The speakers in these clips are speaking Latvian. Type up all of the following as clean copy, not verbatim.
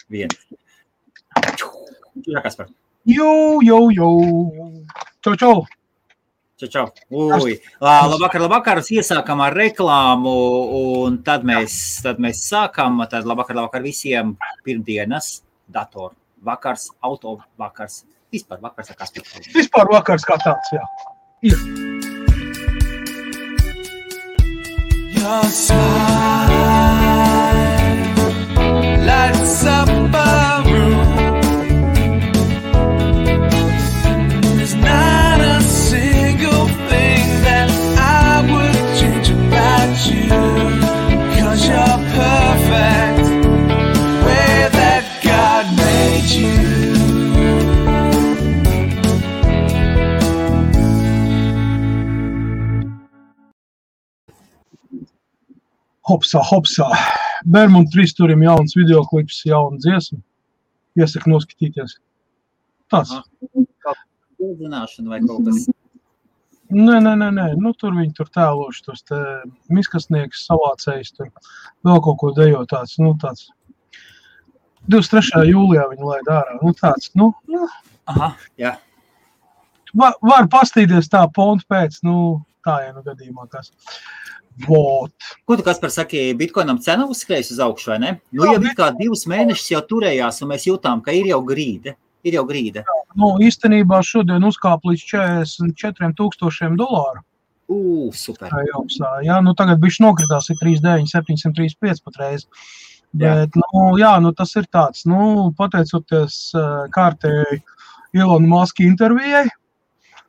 Viens. Jā, Kaspar. Jau. Čau. Čau. Labvakar. Iesākam ar reklāmu, un tad mēs sākam. Tad labvakar visiem pirmdienas, datoru vakars, auto vakars. Vispār vakars ar Kaspar. Vispār vakars kā tāds, jā. Ir. Your smile lights up a room. There's not a single thing that I would change about you, 'cause you're perfect the way that God made you. Hopsā. Bermuda 3 turim jauns videoklips, jauna dziesma. Iesaku noskatīties. Tāds. Zināšana vai kaut kas? Nē. Nu, tur viņi tur tēloši, tos te miskasnieks, savācējs, tur vēl kaut ko dejo tāds, nu, tāds. 23. jūlijā viņi laid ārā, nu, tāds, nu. Aha, jā. Var pastīties tā pontu pēc, nu, tā, ja nu gadījumā kas. Vot. Ko tu, Kaspar, saki, Bitcoinam cena uzskrējas uz augšu, vai ne? Nu, jau kā 2 mēnešus jau turējās, un mēs jūtām, ka ir jau grīde. Nu, īstenībā šodien uzkāp līdz $44,000. Super. Jā, nu tagad bišķi nokritās, ir 3,9, 735 patreiz. Bet, nu, tas ir tāds, nu, pateicoties kārtēji Elona Muska intervijai,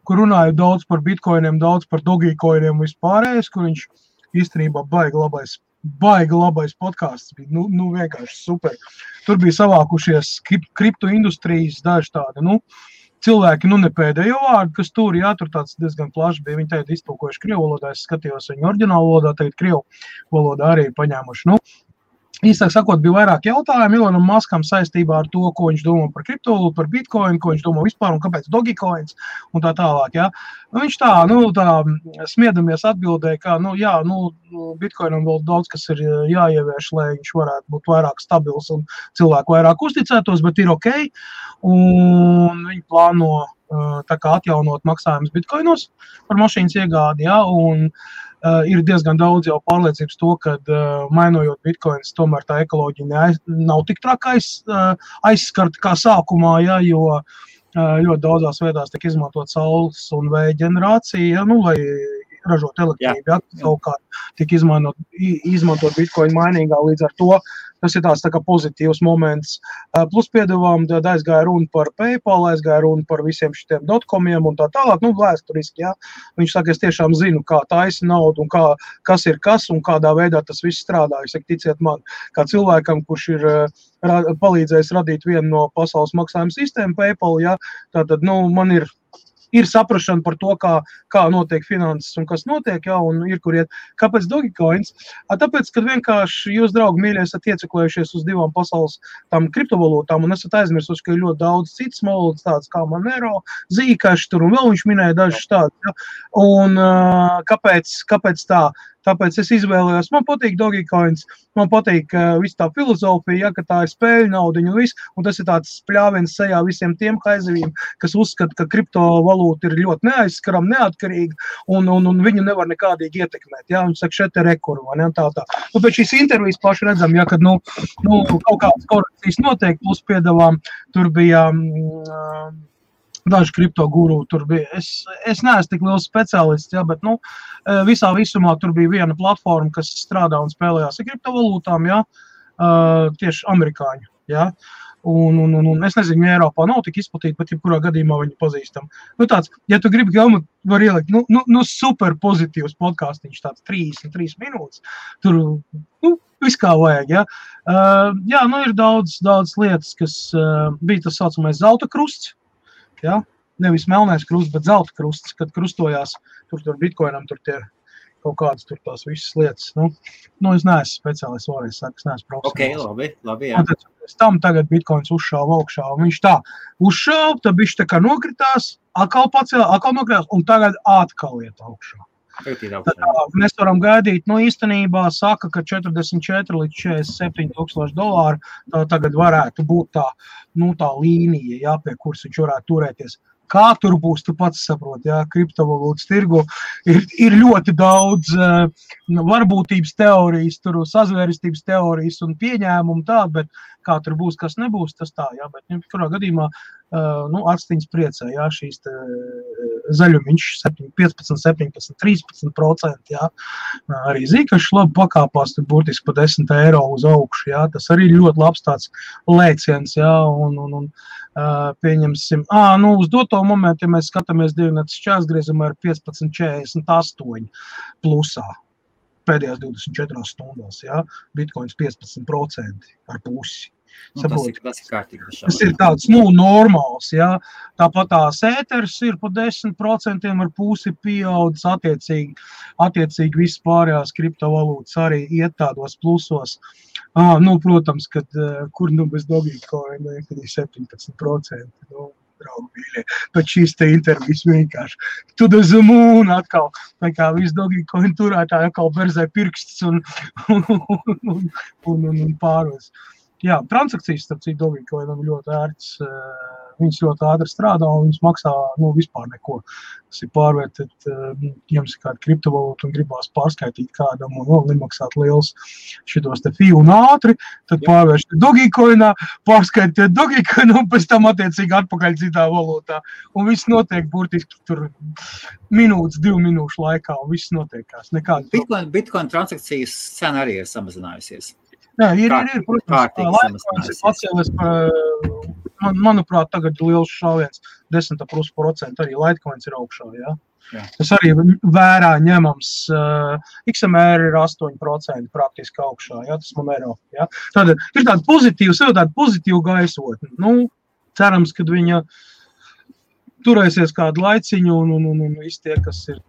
kur runāja daudz par bitcoiniem, daudz par dogecoiniem vispārējais, kur viņš īstenībā baigi labais podcasts bija, nu vienkārši super. Tur bija savākušies kripto industrijas daži tādi, nu, cilvēki, nu ne pēdējo vārdu, kas tur, jā, tur tāds diezgan plašs bija, viņi tagad iztulkojuši krievu valodā, es skatījos viņu oriģinālu valodā, tagad krievu valodā arī ir paņēmuši, nu. Īstāk sakot, bija vairāk jautājumu Elonam Muskam saistībā ar to, ko viņš domā par kriptovalūtu, par bitcoinu, ko viņš domā vispār un kāpēc dogecoins un tā tālāk, jā. Nu, viņš tā smiedamies atbildēja, ka, bitcoinam vēl daudz, kas ir jāievieš, lai viņš varētu būt vairāk stabils un cilvēku vairāk uzticētos, bet ir ok. Un viņi plāno tā kā atjaunot maksājumus bitcoinos par mašīnas iegādi, jā, un ir diezgan daudz jau pārliecības to, ka mainojot bitcoins, tomēr tā ekoloģija nav tik traka aizskarta kā sākumā, ja, jo ļoti daudzās vietās tiek izmantot saules un vēja ģenerācija, ja, nu, lai ražot elektrību, ja, savukārt tiek izmantot bitcoin mainīgā, līdz ar to tas ir tāds tā kā pozitīvs moments. Plus piedevām, tad aizgāja runa par PayPal, aizgāja runa par visiem šitiem dotcomiem un tā tālāk, nu, vēsturiski, jā. Viņš saka, es tiešām zinu, kā taisa naudu un kas ir kas un kādā veidā tas viss strādā. Es saku, ticiet man, kā cilvēkam, kurš ir palīdzējis radīt vienu no pasaules maksājuma sistēmu PayPal, jā, tātad, nu, man ir saprašana par to, kā notiek finanses un kas notiek, jā, un ir, kur iet. Kāpēc dogecoins? Tāpēc, kad vienkārši jūs, draugi, mīļie, esat ieceklējušies uz 2 pasaules tām kriptovalūtām un esat aizmirsuši, ka ir ļoti daudz citas valodas tādas kā Monero, Zcash, tur un vēl viņš minēja dažas tādas, jā. Un kāpēc tā? Tāpēc es izvēlējos, man patīk dogecoins, man patīk viss tā filozofija, ja, ka tā ir spēļu naudiņa un viss, un tas ir tāds pļāviens sejā visiem tiem haizivīm, kas uzskata, ka kriptovalūta ir ļoti neaizskaram, neatkarīga, un viņu nevar nekādīgi ietekmēt, ja, un saka, šeit ir rekuru, vai ne, tā. Nu, pēc šīs intervijas paši redzam, ja, kad, kaut kādas korekcijas notiek, plus piedevām, tur bija daži kripto guru, tur bija, es neesmu tik liels speciālists, ja, bet, visā visumā tur bija viena platforma, kas strādā un spēlējās ar kriptovalūtām, ja, tieši amerikāņu, ja, un es nezinu, ja Eiropā nav tik izplatīta, bet jebkurā gadījumā viņi pazīstam. Nu tāds, ja tu gribi gaumāt, var ielikt, super pozitīvs podcastiņš, tāds 33 minūtes, tur, viss kā vajag, ja. Jā, ir daudz lietas, kas bija tas saucamais zelta krusts, ja, nevis melnais krusts, bet zelta krusts, kad krustojās, tur bitcoinam, tur tie kaut kādas tur tās visas lietas. Es neesmu speciālists, vēlreiz saku, es neesmu profesionāls. Ok, labi, jā. Pēc tam tagad bitcoins uzšāva augšā, un viņš tā uzšāva, tad bišķi tā kā nokritās, atkal pacēlā, atkal nokritās, un tagad atkal iet augšā. Mēs varam gaidīt, īstenībā saka, ka 44 līdz 47 tūkstoši dolāru tā tagad varētu būt tā līnija, jā, pie kuras viņš varētu turēties. Kā tur būs, tu pats saproti, jā, kriptovalūtas tirgu ir ļoti daudz varbūtības teorijas, tur sazvērestības teorijas un pieņēmumu tādu, bet kā tur būs, kas nebūs, tas tā, jā, bet kurā gadījumā atstiņas priecē, jā, šīs zaļumiņš 15, 17, 13%, jā, arī Zikašs labi pakāpās, tur burtiski pa 10 eiro uz augšu, jā, tas arī ļoti labs tāds lēciens, jā, un pieņemsim, uz doto momentu, ja mēs skatāmies dievnētas šķērsgriezumā ir 15,48 plusā pēdējās 24 stundās, jā, Bitcoins 15% ar pusi. Tas ir kārtīgi. Tas ir tāds, normāls, jā. Tāpat tās ēters ir pa 10% ar pusi pieaudzis, attiecīgi viss pārējās kriptovalūtas arī iet tādos plusos. Protams, kad kur bez Dogecoin, kad ir 17%, draugi mīļie, bet šīs te intervijas vienkārši to the moon atkal, tā kā viss Dogecoin turētāji atkal berzē pirksts un pāros. Jā, transakcijas, starp citu, Dogecoinam ļoti ērts, viņas ļoti ātri strādā un viņas maksā, vispār neko. Tas ir pārvērtēt, jums ir kāda kriptovalūta un gribās pārskaitīt kādam un nemaksāt liels šitos te fī un ātri, tad pārvērst Dogecoinā, pārskaitīt Dogecoinu un pēc tam attiecīgi atpakaļ citā valūtā. Un viss notiek burtiski tur minūtes, 2 minūšu laikā un viss notiekās. Bitcoin transakcijas cena arī ir samazinājusies. Jā, ir, protams, Litecoins ir pacēlies, manuprāt, tagad liels šāviens 10% arī Litecoins ir augšā, jā. Tas arī vērā ņemams, XMR ir 8% praktiski augšā, jā, tas Monero, jā. Tad ir tāda pozitīva gaisotne, cerams, kad viņa turēsies kādu laiciņu un visi tie, kas ir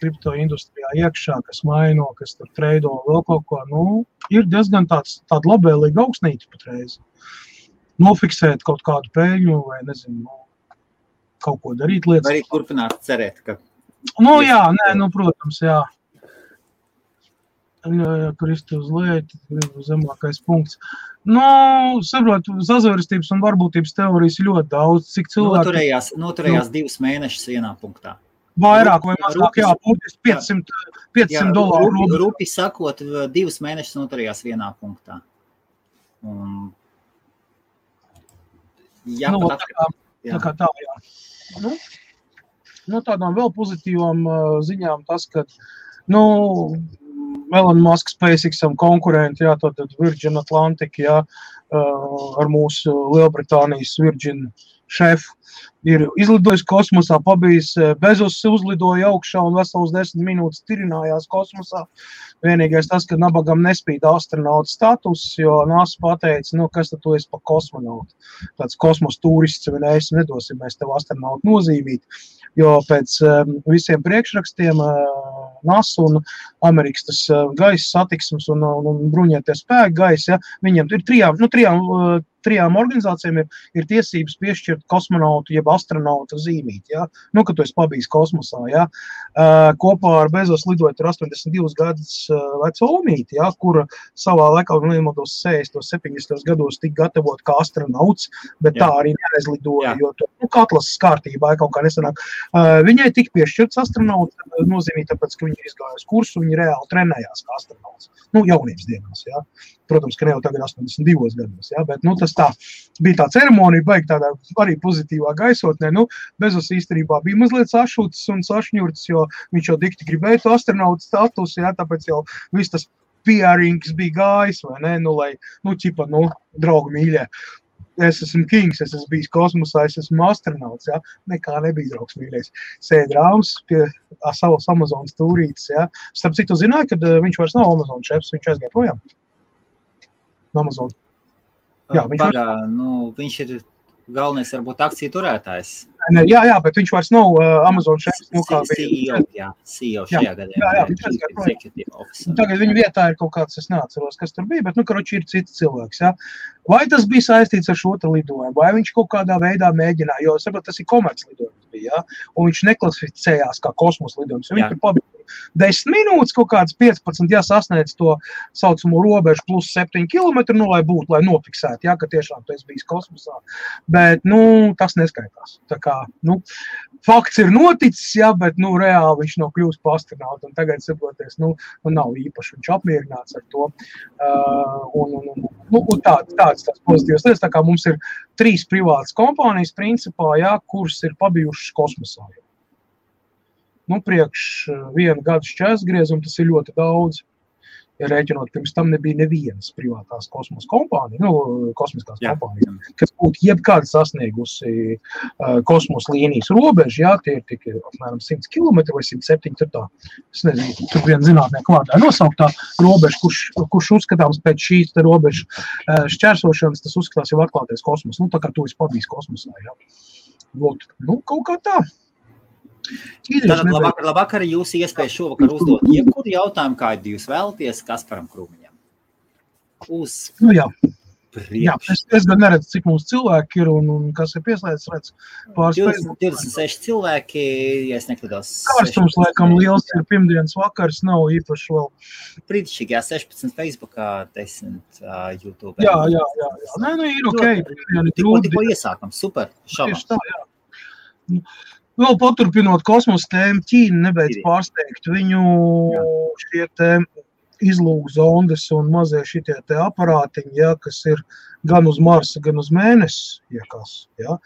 kripto industrijā iekšā, kas maino, kas tur treido vēl kaut ko, ir diezgan tāda labvēlīga augstnīca patreiz. Nofiksēt kaut kādu peļņu vai, nezinu, kaut ko darīt lietas. Vai arī turpināt cerēt, ka... Protams, jā. Kristi uz leju, zemākais punkts. Saprotu, sazvērestības un varbūtības teorijas ļoti daudz, cik cilvēki... Noturējās 2 mēnešus vienā punktā. Vairāk vai mazāk, būtiski $500. Rupi sakot, 2 mēnešus noturējās vienā punktā. Tādām vēl pozitīvām ziņām tas, ka, Elon Musk SpaceXam konkurenti, tad Virgin Atlantic, ar mūsu Lielbritānijas Virgin šefu, ir izlidojis kosmosā, pabijis Bezos uzlidoja augšā un vesels 10 minūtes tirinājās kosmosā. Vienīgais tas, ka nabagam nespīd astronauta status, jo NASA pateica, kas tad tu esi pa kosmonautu. Tāds kosmos turists, nedosim mēs tev astronautu nozīmīt, jo pēc visiem priekšrakstiem NASA un Amerikas tas gaisa satiksmes un bruņotie spēki gaisa, viņiem ir trijām organizācijām ir tiesības piešķirt kosmonautu jeb astronauta zīmīt, kad tu esi pabijis kosmosā, kopā ar Bezos lidojot ar 82 gadus veco omīti, kura savā laikā, nemaldos 60. 70. gados tika gatavot kā astronauts, bet tā arī neaizlidoja, jo atlases kārtībā kaut kā nesanāk. Viņai tika piešķirts astronauts nozīmīt, tāpēc, ka viņa ir izgājusi kursu, viņa reāli trenējās kā astronauts. Jaunības dienās, Protams, ka ne jau tagad 82 gados, bet, tas tā bija tā ceremonija, baigi tādā arī pozitīvā gaisotnē, Bezos īstenībā bija mazliet sašūts un sašņurts, jo viņš jau dikti gribēja to astronautu status, tāpēc jau viss tas PR-ings bija gājis, vai ne, lai, draugi mīļie, es esmu kings, es esmu bijis kosmosā, es esmu astronauts, nekā nebija draugs mīļies. Sēd rāms pie savas Amazonas tūrītes, Starp citu zināja, kad viņš vairs nav Amazon šefs, viņš aizgāja projām. Amazon. Viņš ir galvenais, varbūt, akciju turētājs. Jā, bet viņš vairs nav Amazon šefs. CEO šajā gadījumā. Tagad viņa vietā ir kaut kāds, es neatceros, kas tur bija, bet, ir cits cilvēks, Vai tas bija saistīts ar šo te lidojumu, vai viņš kaut kādā veidā mēģināja, jo, saprot, tas ir komerclidojums bija, un viņš neklasificējās kā kosmos lidojums, jo viņš tur pabija 10 minūtes, kaut kāds 15, ja sasniedz to saucamo robežu plus 7 kilometru, nu, lai būtu, lai nofiksētu, ja, ka tiešām tu esi bijis kosmosā. Bet, nu, tas neskaitās. Tā kā, nu, fakts ir noticis, ja, bet, nu, reāli viņš nav kļūst par astronautu, un tagad, saproties, nu, nav īpaši viņš apmierināts ar to. Un tāds pozitīvs lietas, tā kā mums ir 3 privātas kompānijas principā, ja, kuras ir pabijušas kosmosā. Nu, priekš 1 gadu šķērsgriezumu tas ir ļoti daudz. Ja rēķinot, pirms tam nebija nevienas privātās kosmosa kompānijas, kosmiskās kompānijas, kas būtu jebkāda sasniegusi kosmosa līnijas robežu, jā, tie ir tikai apmēram 100 km vai 107, tur tā, es nezinu, tur viena zinātnieku vārdā nosauktā robeža, kurš uzskatāms pēc šīs te robežu šķērsošanas, tas uzskatās jau atklātais kosmos, nu, tā kā tu esi pabijis kosmosā, jā. Lūk, nu, kaut kā tā. Tātad labvakar, jūs iespēja šovakar uzdot jebkuru jautājumu, kādu jūs vēlaties Kasparam Krūmiņam. Nu jā, es gan neredzu, cik mums cilvēki ir un kas ir pieslēdz, redz pāris 26 cilvēki, ja es nekļūdos. Kārstums, laikam, liels ir pirmdienas vakars, nav īpaši vēl. Brītišķīgi, 16 Facebookā, 10 YouTube. Jā. Nē, nu ir okei. Tikko iesākam, super, šabā. Tieši tā, jā. Vēl paturpinot kosmosa tēmu, Ķīna nebeidz pārsteigt. Viņu šie te izlūkzondes un mazie šitie te aparātiņi, ja, kas ir gan uz Marsa, gan uz Mēnesi, iekas. Ja.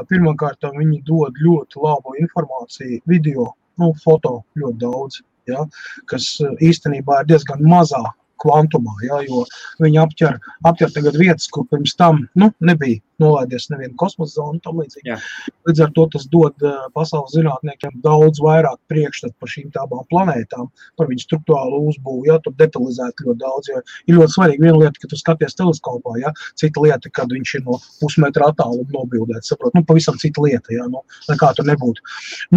Pirmkārt, viņi dod ļoti labu informāciju, video, foto ļoti daudz, ja, kas īstenībā ir diezgan mazā kvantumā, ja, jo viņi apķer tagad vietas, kur pirms tam nebija nolaidies nevienu kosmosa zonu, tam līdzīgi. Līdz ar to tas dod pasaules zinātniekiem daudz vairāk priekšstat par šīm abām planētām, par viņu struktūrālu uzbūvu, ja, tur detalizēt ļoti daudz, jo ir ļoti svarīgi viena lieta, ka tu skaties teleskopā, ja, cita lieta, kad viņš ir no pusmetra attāluma nobildēts, saprot, pavisam cita lieta, ja, nekā tur nebūtu.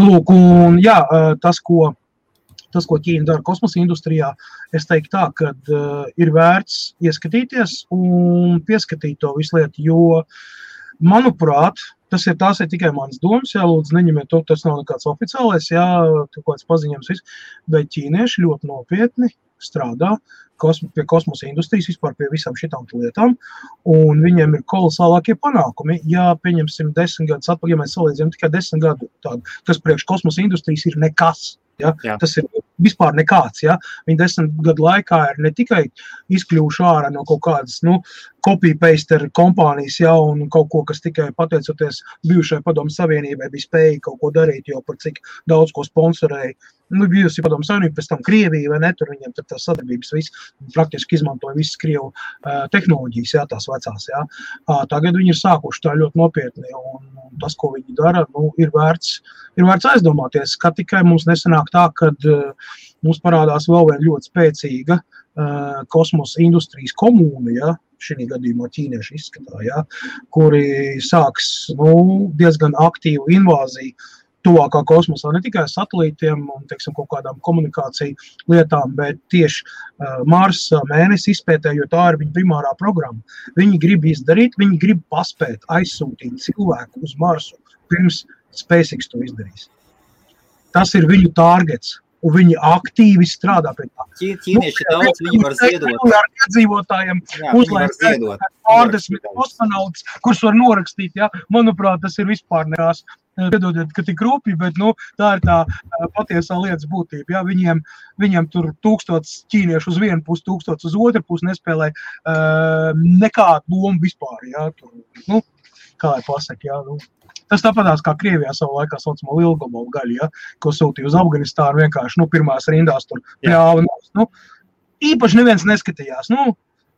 Lūk, un jā, tas, ko Ķīna dara kosmosa industrijā, es teiktu tā, ka ir vērts ieskatīties un pieskatīt to visu lietu, jo, manuprāt, tās ir tikai manas domas, jā, lūdzu, neņemiet to, tas nav nekāds oficiālais, jā, kāds paziņojums viss, bet ķīnieši ļoti nopietni strādā pie kosmosa industrijas, vispār pie visām šitām lietām, un viņiem ir kolosālākie panākumi. Ja pieņemsim 10 gadus atpakaļ, ja mēs salīdzinām tikai 10 gadu tādu, kas priekš kosmosa industrijas ir nekas. Ja? Tas ir vispār nekāds. Ja? Viņi 10 gadu laikā ir ne tikai izkļuvuši ārā no kaut kādas copy-paste kompānijas, ja, un kaut ko, kas tikai pateicoties bijušai Padomu Savienībai bija spēja kaut ko darīt, jo par cik daudz ko sponsorēja. Bijusi Padomu Savienība, pēc tam Krievija, vai ne, tur viņiem tur tās sadarbības praktiski izmantoja visas Krievu tehnoloģijas, jā, tās vecās. Jā. Tagad viņi ir sākuši tā ļoti nopietni, un tas, ko viņi dara, ir vērts aizdomāties, ka tikai mums nesanāk tā, kad mums parādās vēl viena ļoti spēcīga kosmosa industrijas komūna, ja, šī gadījumā ķīnieši izskatā, ja, kuri sāks diezgan aktīvu invāziju tuvākā kosmosā, ne tikai satelītiem un, teiksim, kaut kādām komunikāciju lietām, bet tieši Marsa, Mēnesi izpētē, jo tā ir viņa primārā programma. Viņi grib izdarīt, viņi grib paspēt aizsūtīt cilvēku uz Marsu, pirms SpaceX to izdarīs. Tas ir viņu targets. Un viņi aktīvi strādā pie tā. Ķīnieši daudz, viņi var ziedot. Ar iedzīvotājiem uzlaist pārdesmit kosmonauts, kurus var norakstīt, ja. Manuprāt, tas ir vispār nekās. Piedodiet, ka tik rūpīgi, bet tā ir tā patiesā lietas būtība. Ja. Viņiem tur 1000 ķīniešu uz vienu pusi, 1000 uz otru pusi nespēlē nekādu lomu vispār. Ja. Tur, kā lai pasaka, ja. Tas tāpatās kā Krievijā savu laikā saucamo lielgabalu gaļu, ja, ko sūtīja uz Afganistānu vienkārši, pirmās rindās tur pļāva. Īpaši neviens neskatījās.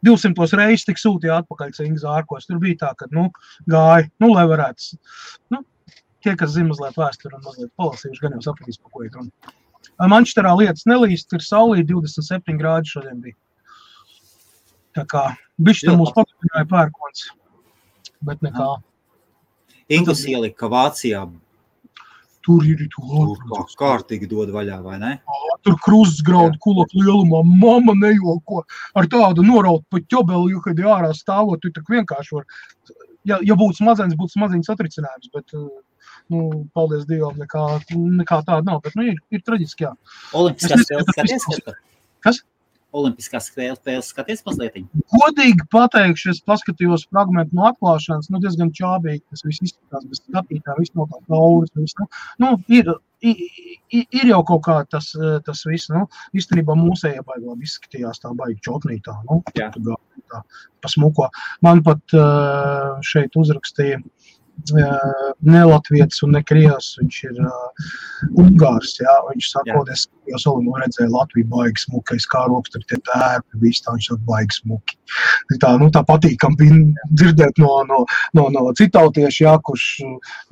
200 reizes tik sūtīja atpakaļ cīņas ārkos. Tur bija tā, ka, gāja, lai varētu. Tie, kas zina mazliet vēsturi un mazliet palasījuši, gan jau sapratīs, pa ko ir runa. Mančesterā lietas nelīst, ir saulī 27 grādi šodien bija. Tā kā, bišķi tam mūs paturpināja pērkons, bet nekā. Ingus ielika Vācijā. Tur ir kārtīgi dod vaļā, vai ne? Tur kruzes graudu kulak lielumā, mama nejoko. Ar tādu noraut pa ķobeli, jo, kad ārā stāvot, tu tak vienkārši var. Ja būtu smadzenes satricinājums, bet paldies Dievam, nekā tāda nav, bet, ir traģiski, jā. Olimpiskās spēles skaties? Kas? Olimpiskās spēles skaties mazliet? Godīgi pateikšu, es paskatījos fragmentu no atklāšanas, diezgan čābīgi, tas viss izskatās, bez skatītā, viss no tā kauras, viss, ir jau kaut kā tas viss, īstenībā mūsējā baigi labi izskatījās tā baigi čotnītā, tā pasmuko. Man pat šeit uzrakstīja ne latvietis un ne krievs, viņš ir ungārs, jā, viņš saka, es redzēju Latviju baigi smuki, kā rokas tur tie tērpi, viss tā, viņš saka baigi smuki. Tā patīkam bija dzirdēt no citautieši, jā, kurš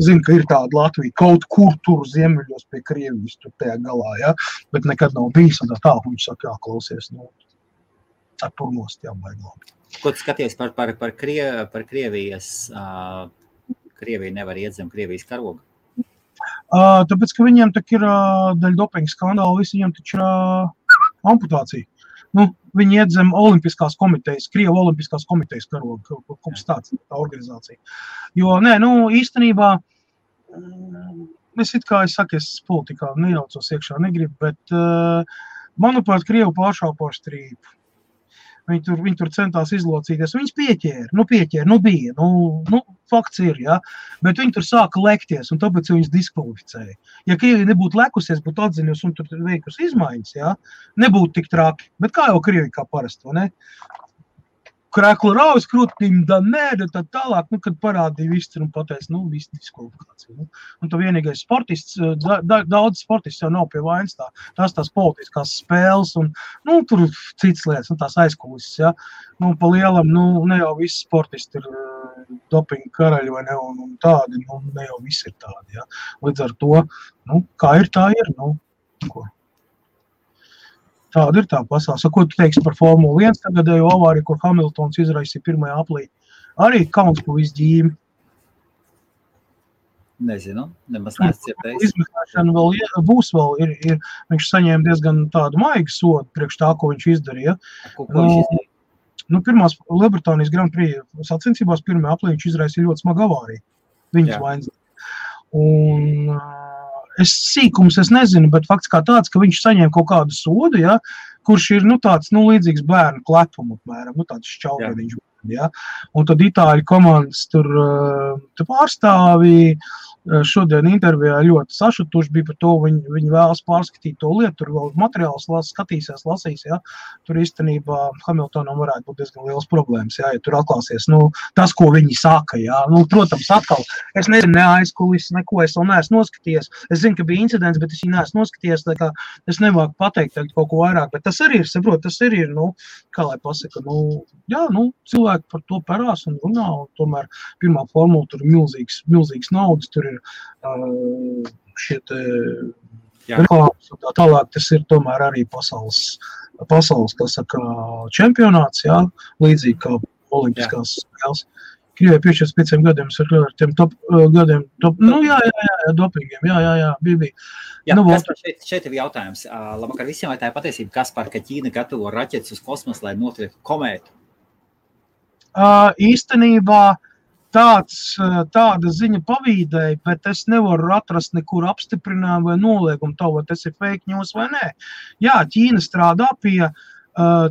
zina, ka ir tāda Latvija kaut kur tur ziemeļos pie Krievijas tur tajā galā, jā, bet nekad nav bijis, un tā, viņš saka, jā, klausies, turnost, jā, baigi labi. Ko tu skaties par Krievijas... Krievija nevar iet zem Krievijas karoga? Tāpēc, ka viņiem tak ir daļa dopinga skandāla, visi viņiem taču ir amputācija. Viņi iet zem Olimpiskās komitejas, Krieva Olimpiskās komitejas karoga, kaut tā organizācija. Jo, īstenībā, es politikā nejaucos iekšā, negribu, bet, manuprāt, Krievu pāršāpo strīpu. Viņi tur centās izlocīties, viņas pieķēra, bija, fakts ir, jā, bet viņi tur sāka lekties, un tāpēc viņas diskvalificēja. Ja Krievija nebūtu lekusies, būtu atziņus un tur veikusi izmaiņas, jā, nebūtu tik traki, bet kā jau Krievija kā parasti, vai ne? Krēklu raujas krūtīm, tad tālāk, kad parādīja viss un pateica, viss diskvalifikācija. Un tā vienīgais sportists, daudz sportists jau nav pie vainas tās politiskās spēles un, tur cits lietas, tās aizkulises, jā. Pa lielam, ne jau visi sportisti ir dopinga karaļi vai ne, un tādi, ne jau visi ir tādi, jā. Līdz ar to, kā ir, tā ir, ko. Tāda ir tā pasaule. Ko tu teiksi par Formulu 1 tagadējo avāriju, kur Hamiltons izraisīja pirmajā aplī? Arī kauns pa visu ģīmi. Nezinu, nemaz neescietējis. Izmeklēšana būs vēl. Viņš saņēma diezgan tādu maigu sodu priekš tā, ko viņš izdarīja. Ko viņš izdarīja? Pirmās Lielbritānijas Grand Prix sacensībās pirmajā aplī viņš izraisīja ļoti smagu avāriju. Viņas vainas. Un... Es nezinu, bet fakts kā tāds, ka viņš saņēma kaut kādu sodu, ja, kurš ir, tāds, līdzīgs bērnu klepumu, apmēram, tāds šķaugadiņš. Ja. Un tad itāļu komandas tur pārstāvī šodien intervijā ļoti sašutuši bija par to, viņi vēlas pārskatīt to lietu, tur vēl materiāls lasīs, ja. Tur īstenībā Hamiltonam varētu būt diezgan liels problēmas, ja tur atklāsies, tas, ko viņi saka, ja. Protams, atkal, es nezinu, ne aizkulis, neko es vēl neesmu noskaties, es zinu, ka bija incidents, bet es viņu neesmu noskaties, tā kā es nevāku pateikt kaut ko vairāk, bet tas arī ir, tas arī ir, kā lai pasaka, cilvēki par to parās un runā, un tomēr pirmā formula tur ir milzīgs naudas, tur ir šie reklāmas un tā tālāk, tas ir tomēr arī pasaules, kā saka, čempionāts, jā, līdzīgi kā olimpiskās spēles. Krievijai 45 gadiem ar tiem gadiem, dopingiem, jā, bija. Šeit ir jautājums. Labvakar visiem, vai tā ir patiesība, Kaspar, ka Ķīna gatavo raķetes uz kosmosu, lai notriektu komētu? Īstenībā tāda ziņa pavīdēja, bet es nevaru atrast nekur apstiprinājumu vai noliegumu to, vai tas ir fake news vai nē. Jā, Ķīna strādā pie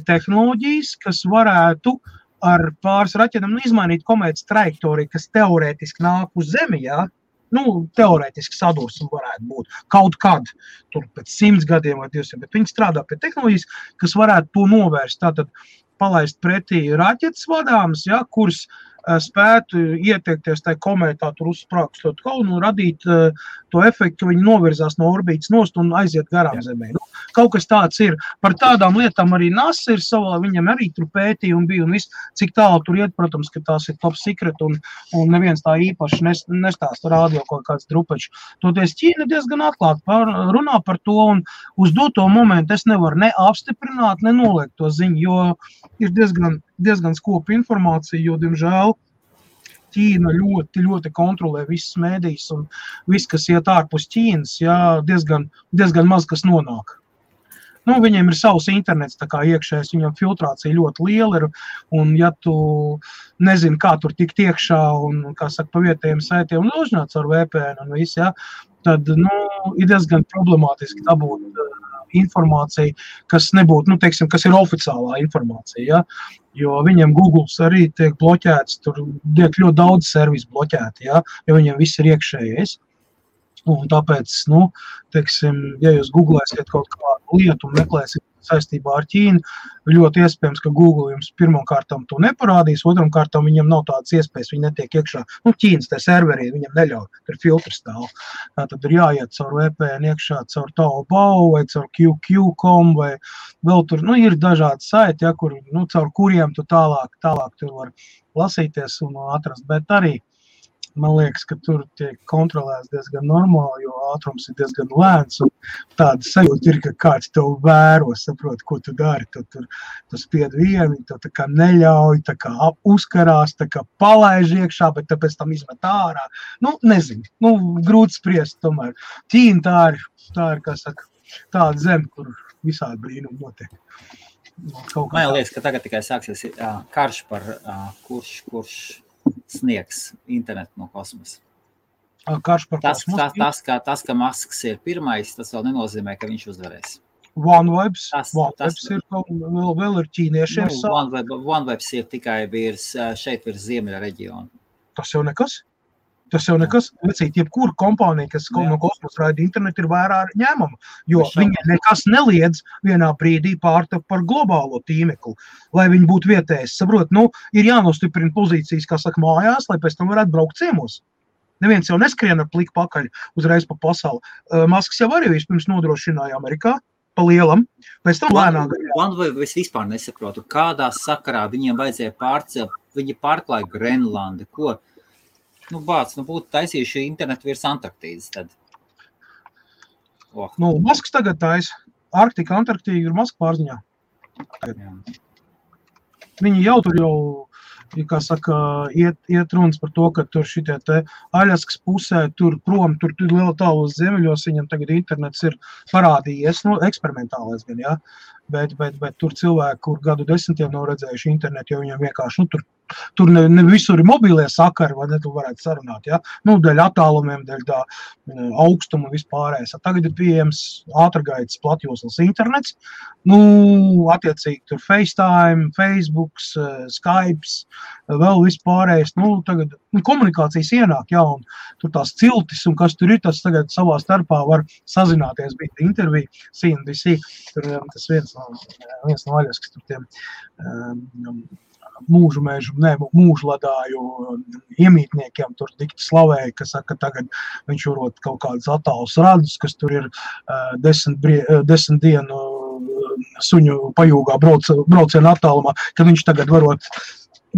tehnoloģijas, kas varētu ar pāris raķetēm izmainīt komētas trajektoriju, kas teorētiski nāk uz Zemi, jā. Teorētiski sadursme varētu būt kaut kad, tur pēc 100 gadiem vai 200, bet viņi strādā pie tehnoloģijas, kas varētu to novērst. Tātad palaist pretī raķetes vadāmas, ja, kuras spētu ieteikties tajā komētā, tur uzsprākstot kaunu un radīt to efektu, ka viņi novirzās no orbītas nost un aiziet garām Zemē. Kaut kas tāds ir. Par tādām lietām arī NASA ir savā, viņam arī tur pētījumi bija un viss, cik tālu tur iet, protams, ka tās ir top secret un neviens tā īpaši nestāsta rādio kaut kāds drupačs. Toties Ķīna diezgan atklāti runā par to un uz doto momentu es nevaru ne apstiprināt, ne noliekt to ziņu, jo ir diezgan skopa informācija, jo, diemžēl, Ķīna ļoti kontrolē visas mēdīs un viss, kas iet ārpus Ķīnas, jā, diezgan maz, kas nonāk. Nu, viņiem ir savs internets, tā kā iekšējais, viņam filtrācija ļoti liela ir, un ja tu nezini, kā tur tikt iekšā, un, kā saka, pa vietējiem saitiem, un uzņāc ar VPN un viss, ja, tad, ir diezgan problemātiski dabūt informāciju, kas nebūtu, teiksim, kas ir oficiālā informācija, ja, jo viņiem Googles arī tiek bloķēts, tur tiek ļoti daudz servisu bloķēti, ja, jo viņiem viss ir iekšējais. Un tāpēc, teiksim, ja jūs googlēsiet kaut kādu lietu un meklēsiet saistībā ar Ķīnu, ļoti iespējams, ka Google jums pirmkārtām to neparādīs, otramkārtām viņam nav tādas iespējas, viņi netiek iekšā. Ķīnas tie serveri, viņam neļauj, tur filtrs stāv. Tad ir jāiet caur VPN iekšā, caur Taobao vai caur QQ.com vai vēl tur, ir dažādi saiti, ja, kur, caur kuriem tu tālāk tur var lasīties un atrast, bet arī man liekas, ka tur tiek kontrolēts diezgan normāli, jo ātrums ir diezgan lēns, un tāda sajūta ir, ka kāds tev vēro, saprot, ko tu dari, tu spied vienu, tu tā kā neļauj, tā kā uzkarās, tā kā palaiž iekšā, bet tāpēc tam izmet ārā. Nezinu, grūti spriest tomēr. Ķīna tā ir, kā saka, tāda zeme, kur visādi brīnumi notiek. Man liekas, ka tagad tikai sāksies karš par kurš sniegs internetu no kosmosa. Karš par kosmosu? Tas, ka Masks ir pirmais, tas vēl nenozīmē, ka viņš uzvarēs. OneWebs ir vēl ir ķīniešiem. OneWebs ir tikai šeit virs ziemeļa reģiona. Tas jau nekas. Vecīt, jebkura kompānija, kas no kosmosa raida internetu, ir vērā ņēmama, jo viņi nekas neliedz vienā brīdī pārtap par globālo tīmeklu, lai viņi būtu vietējais. Saprot, ir jānostiprina pozīcijas, kā saka, mājās, lai pēc tam varētu braukt ciemos. Neviens jau neskrien ar pliku pakaļ uzreiz pa pasauli. Masks jau arī vispirms nodrošināja Amerikā, pa lielam, pēc tam lēnāk. Es vispār nesaprotu, kādā sakarā viņiem vajadzēja pārcelt, viņi pārklāja Grenlandi, ko? Būtu taisījuši internetu virs Antarktīdas tad. Masks tagad taisa. Arktika, Antarktīda ir Maska pārziņā. Viņi jau tur kā saka, iet runas par to, ka tur šitie te Aļaskas pusē, tur prom, tur liela tālos ziemeļos, viņam tagad internets ir parādījies, eksperimentālais gan, jā, bet tur cilvēki, kur gadu desmitiem nav redzējuši internetu, jo viņam vienkārši, tur ne visur ir mobīlie sakari, vai ne, tu varētu sarunāt, ja? Dēļ attālumiem, dēļ tā augstuma un vispārējais. Tagad ir pieejams ātrgaitas platjoslas internets, attiecīgi tur FaceTime, Facebooks, Skypes, vēl vispārējais, tagad komunikācijas ienāk, jā, un tur tās ciltis, un kas tur ir, tas tagad savā starpā var sazināties, bija intervija, CNBC, tur tas viens no Aļaskas, tur tiem mūžladāju iemītniekiem tur dikti slavēja, ka saka, tagad viņš varot kaut kādas attālus radus, kas tur ir 10 dienu suņu pajūgā braucienu attālumā, kad viņš tagad varot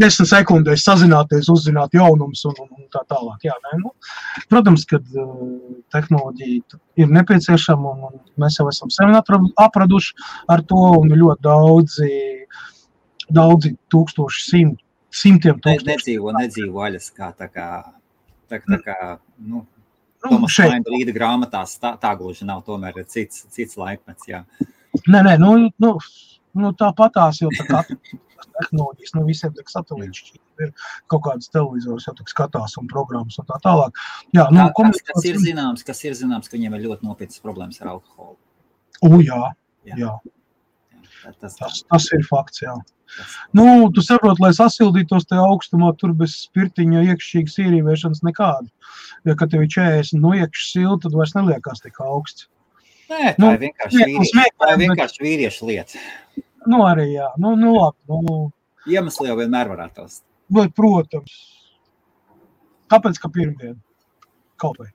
10 sekundēs sazināties, uzzināt jaunumus un tā tālāk. Jā, protams, kad tehnoloģija ir nepieciešama un mēs jau esam sevi apraduši ar to un ļoti daudzi tūkstoši, simtiem tūkstoši. Nedzīvo Aļaskā, tā kā Tomas Vainbrīda grāmatās tā gluži nav, tomēr ir cits laikmets, jā. Nē, tāpatās jau tā tehnoloģijas, visiem tak satelīti ir kaut kādas televizors, jau tak skatās un programmas un tā tālāk. Jā, kas ir zināms, ka viņiem ir ļoti nopietnas problēmas ar alkoholu. Jā. Tas ir fakts, jā. Tu saproti, lai sasildītos tajā augstumā, tur bez spirtiņa iekšķīgas ierīvēšanas nekādu. Ja, kad tev ir 40 no iekšas silta, tad vairs neliekās tik augsts. Nē, tā ir vienkārši vīriešu lieta. Arī jā. Labi. Iemesli jau vienmēr varētu tos. Bet, protams. Tāpēc, ka pirmdien. Kaut vai.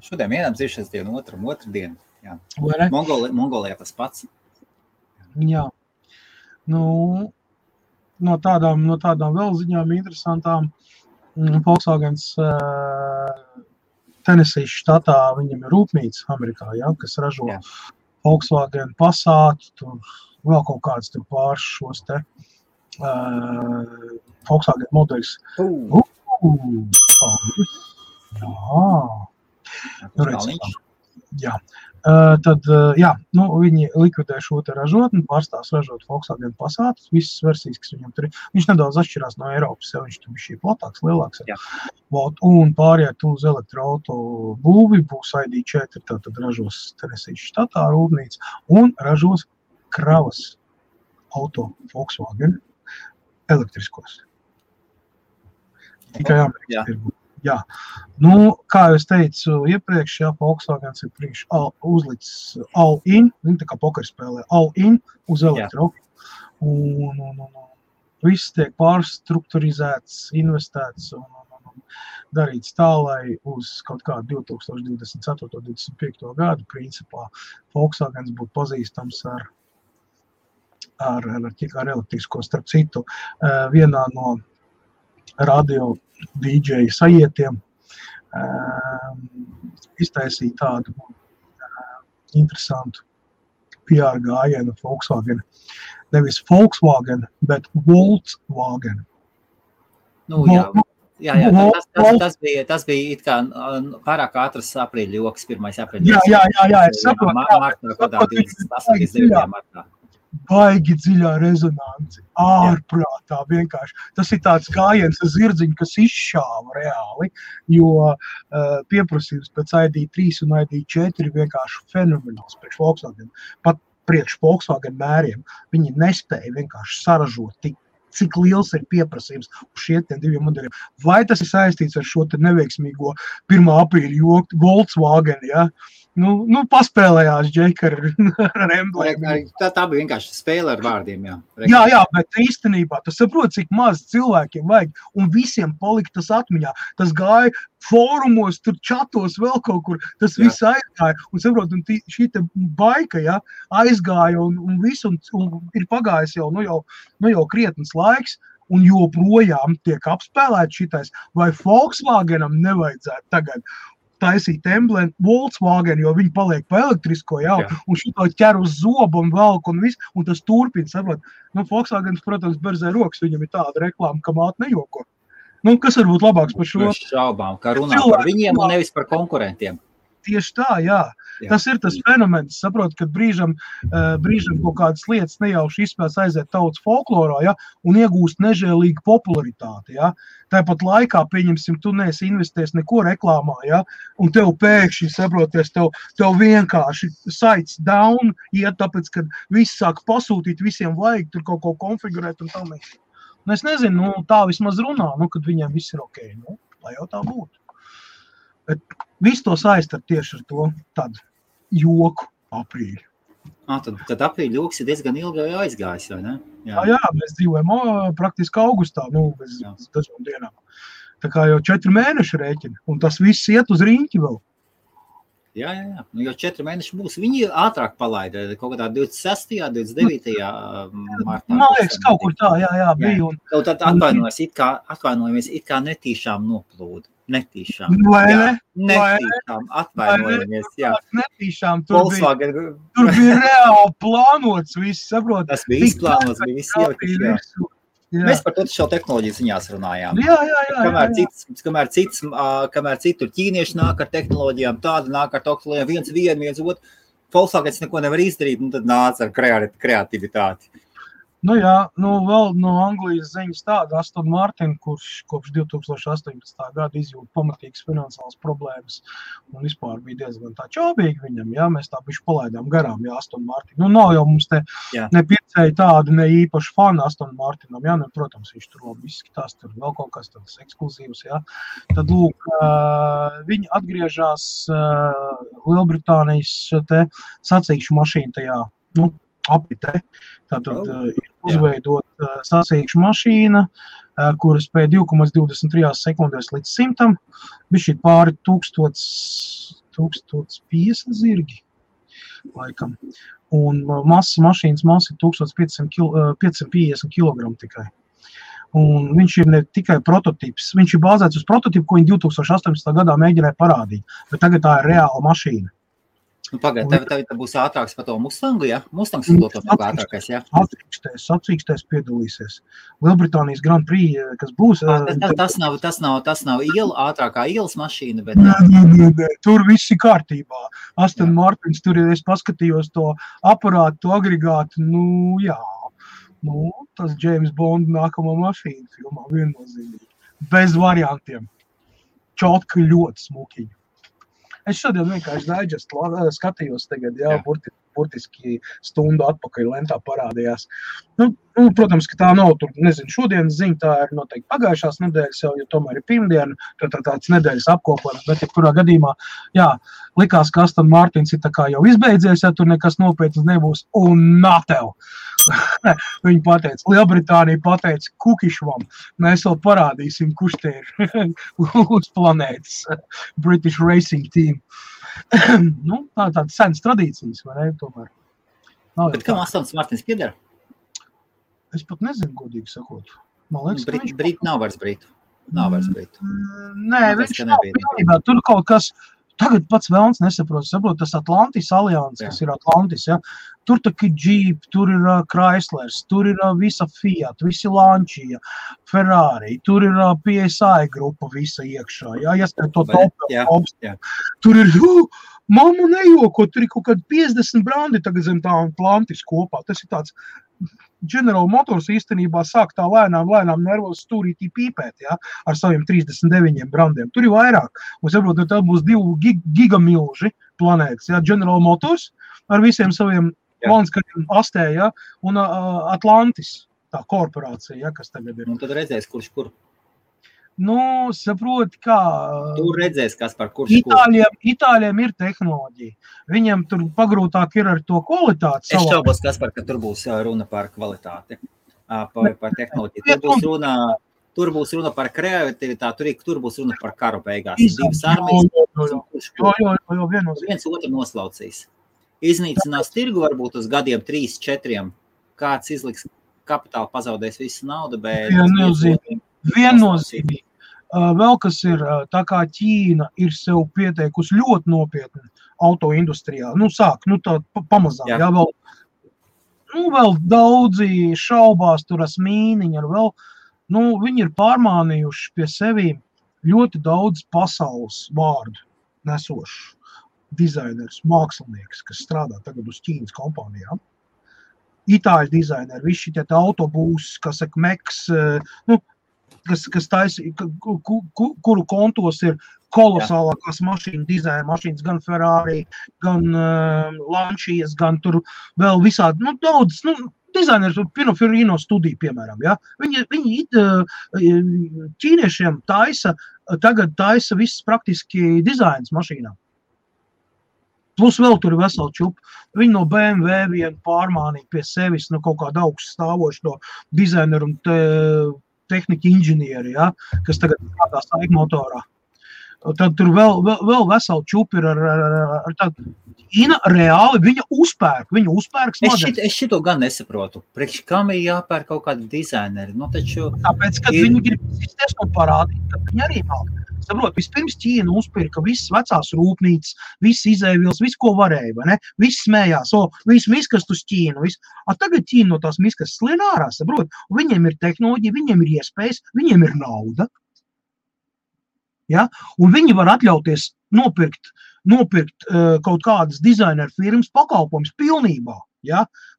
Šodien vienam dziršanas dienu, otru dienu. Jā. Mongolijā tas pats. Jā. No tādām vēl ziņām interesantām. Volkswagens Tennessee štatā viņam ir rūpnīca Amerikā, ja, kas ražo Volkswagen Passat, tur vēl kaut kāds tur pārš šos te Volkswagen modeļus. Jā. Tad, jā, viņi likvidē šo te ražotni, pārstās ražot Volkswagen Passat, visas versijas, kas viņam tur ir. Viņš nedaudz atšķirās no Eiropas, ja viņš tur bija šī platāks, lielāks. Un pāriet uz elektroauto būvi, būs ID4, tad ražos Tenesīs štatā rūpnīca un ražos kravas auto Volkswagen elektriskos. Tikai Amerikas tirgu. Jā, kā es teicu iepriekš, Volkswagens ir uzlicis all-in, viņi tā kā pokerspēlē, all-in uz elektro. Un viss tiek pārstrukturizēts, investēts un darīts tā, lai uz kaut kādu 2024-2025 gadu principā Volkswagens būtu pazīstams ar elektrisko. Starp citu, vienā no radio DJ sajietiem iztaisīja tādu interesantu PR gājienu Volkswagen. Nevis Volkswagen, bet Volkswagen. Tas bija it kā pārāk ātras aprīļa joks, 1. aprīļa. Jā, es saprotu. Baigi dziļā rezonanci, ārprātā vienkārši. Tas ir tāds gājiens ar zirdziņu, kas izšāva reāli, jo pieprasījums pēc ID3 un ID4 ir vienkārši fenomenāls priekš Volkswagen. Pat priekš Volkswagen mēriem viņi nespēja vienkārši saražot cik liels ir pieprasījums uz šiem diviem modeļiem. Vai tas ir saistīts ar šo te neveiksmīgo 1. aprīļa joku Volkswagen, ja? Paspēlējās Džeka ar emblēmu. Tā bija vienkārši spēle ar vārdiem, jā. Jā, bet īstenībā tas saprot, cik maz cilvēkiem vajag, un visiem palika tas atmiņā. Tas gāja fórumos, tur čatos vēl kaut kur, tas viss aizgāja, un saprot, un šī te baika, ja, aizgāja, un viss, un ir pagājis jau krietnes laiks, un joprojām tiek apspēlēt šitais, vai Volkswagenam nevajadzētu tagad taisīt emblēmu Volkswagen, jo viņi paliek pa elektrisko, un šito ķer uz zobu un velk un viss, un tas turpina, saprot. Volkswagens, protams, berzē rokas, viņam ir tāda reklāma, ka māte nejoko. Kas var būt labāks par šo? Šaubām, ka runā par viņiem un nevis par konkurentiem. Tieši tā, jā. Tas ir tas fenomens, saprot, kad brīžam kaut kādas lietas nejauši izspēs aiziet tautas folklorā, un iegūst nežēlīgu popularitāti, Tāpat laikā, pieņemsim, tu neesi investējis neko reklāmā, un tev pēkšņi, saproties, tev vienkārši sites down, tāpēc, kad viss sāk pasūtīt, visiem vajag tur kaut ko konfigurēt un tam. Es nezinu, tā vismaz runā, kad viņiem viss ir ok, lai jau tā būtu. Bet viss to saistar tieši ar to tādu joku aprīļu. Tad aprīļa joks ir diezgan ilgi aizgājis, vai ne? Jā, mēs dzīvojam praktiski augustā, bez dažām dienām. Tā kā jau 4 mēneši rēķina, un tas viss iet uz riņķi vēl. Jā. Jau 4 mēneši būs. Viņi ātrāk palaida, kaut kādā 26. 29. martā. Man liekas, kaut kur tā, bija. Tad atvainojamies, it kā netīšām noplūda. Netīšām. Netīšām, atvainojamies, jā. Netīšām, tur bija reāli plānots viss, saprot. Tas bija izplānots, bija viss ielikt, jā. Mēs par to šo tehnoloģiju ziņās runājām. Jā. Kamēr citur ķīnieši nāk ar tehnoloģijām, tāda nāk ar tehnoloģijām, viens otru. Volkswagens neko nevar izdarīt, tad nāca ar kreativitāti. Vēl no Anglijas ziņas tāda Aston Martin, kurš kopš 2018. Gada izjūt pamatīgas finansiālas problēmas un vispār bija diezgan tā čābīgi viņam, mēs tā bišķi palaidām garām, Aston Martin. Nav jau mums te nepircēji tādi ne īpaši fani Aston Martinam, protams, viņš tur labi izskatās, tur vēl kaut kas tāds ekskluzīvs, Tad, lūk, viņi atgriežās Lielbritānijas te sacīkšu mašīnu tajā, apritē. Tātad ir uzveidot sacīkšu mašīna, kura spēja 2,23 sekundēs līdz 100, bišķi pāri 1050 zirgi, laikam. Un mašīnas masa ir 1550 kg tikai. Un viņš ir ne tikai prototips, viņš ir bāzēts uz prototipu, ko viņi 2018. Gadā mēģināja parādīt, bet tagad tā ir reāla mašīna. Pagaid, tev būs ātrāks par to Mustangu, ja? Mustangs ir to ātrākais, ja? Sacīkstēs piedalīsies. Lielbritānijas Grand Prix, kas būs... Tas nav ātrākā ielas mašīna, bet... Nē, tur viss ir kārtībā. Aston Martins, tur es paskatījos to aparātu, to agregātu, tas James Bond nākamā mašīna filmā viennozīmīgi. Bez variantiem. Čotka ļoti smukiņa. Es šodien vienkārši skatījos tagad, burtiski stundu atpakaļ lentā parādījās. Protams, ka tā nav tur, nezinu, šodienas ziņa, tā ir noteikti pagājušās nedēļas jau, jo tomēr ir pirmdiena, tāds nedēļas apkopojums, bet kurā gadījumā, likās, ka Aston Martins ir tā kā jau izbeidzies, ja tur nekas nopietnas nebūs, un natev. Viņi pateica, Lielbritānija pateica Kukišvam, mēs vēl parādīsim, kurš te ir uz planētas British Racing Team. Tādas senas tradīcijas, vai ne, tomēr. Bet kam Aston Martins pieder? Es pat nezinu, godīgi sakot. Man liekas, Brīt nav vairs Brītu. Nē, viņš nav pilnībā. Tur kaut kas... Tagad pats vēlns nesaprot, tas Atlantis alians, kas ir Atlantis, ja? Tur tā Jeep, tur ir Chryslers, tur ir visa Fiat, visi Lancia, Ferrari, tur ir PSI grupa visa iekšā, ieskait to top. Tur ir, mamma nejoko, tur ir kaut kādi 50 brandi tagad zem tā Atlantis kopā, tas ir tāds... General Motors īstenībā sāk tā lēnām nervos stūrītī pīpēt, ar saviem 39 brandiem. Tur ir vairāk. Un saprot, tā būs 2 gigamilži planētas, General Motors ar visiem saviem valnskariem astē, un Atlantis, tā korporācija, kas tagad ir. Un tad redzēs, kurš kur. Saproti, kā... Tur redzēs, kas par kurš Itāļiem ir tehnoloģija. Viņiem tur pagrūtāk ir ar to kvalitāti. Es šaubos, Kaspar, ka tur būs runa par kvalitāti, par tehnoloģiju. Tur būs runa par kreativitāti, tur būs runa par karu beigās. Divas armijas. Viens otru noslaucīs. Iznīcinās tirgu varbūt uz gadiem 3-4. Kāds izliks kapitālu, pazaudēs visu naudu, bet... Viennozīmīgi. Vēl kas ir, tā kā Ķīna ir sev pieteikusi ļoti nopietni autoindustrijā. Tā pamazām, vēl daudzi šaubās tur asmīniņi, viņi ir pārmānījuši pie sevi ļoti daudz pasaules vārdu nesošu dizainers, mākslinieks, kas strādā tagad uz Ķīnas kompānijām. Itāļu dizaineri, visi šitie autobūs, kas saka, Meks, kas taisa, kuru kontos ir kolosālākās mašīnu dizaina mašīnas, gan Ferrari, gan Lancias, gan tur vēl visādi, daudz, dizainers, Pininfarina studija, piemēram, Viņi ķīniešiem tagad taisa viss praktiski dizains mašīnām. Plus vēl tur ir vesela čupa. Viņi no BMW vien pārmānīja pie sevis, kaut kādu augstu stāvošu no dizaineru un tehnika inženieri, kas tagad strādā saik motorā. Tad tur vēl vesela čupa ir ar tādu. Ķīna reāli, viņa uzpērk smadzenes. Es šito gan nesaprotu. Priekš kam ir jāpērk kaut kādi dizaineri? Tāpēc, kad viņi grib izties un parādīt, ka viņi arī māk. Saprot, vispirms Ķīna uzpirka visas vecās rūpnīcas, visas izēvielas, visu, ko varēja, vai ne? Viss smējās, visu miskast uz Ķīnu, visu. Tagad Ķīna no tās miskas slien ārā, saprot? Viņiem ir tehnoloģija, viņiem ir iespējas, viņiem ir nauda. Un viņi var atļauties nopirkt kaut kādas dizaineru firmas pakalpojums pilnībā,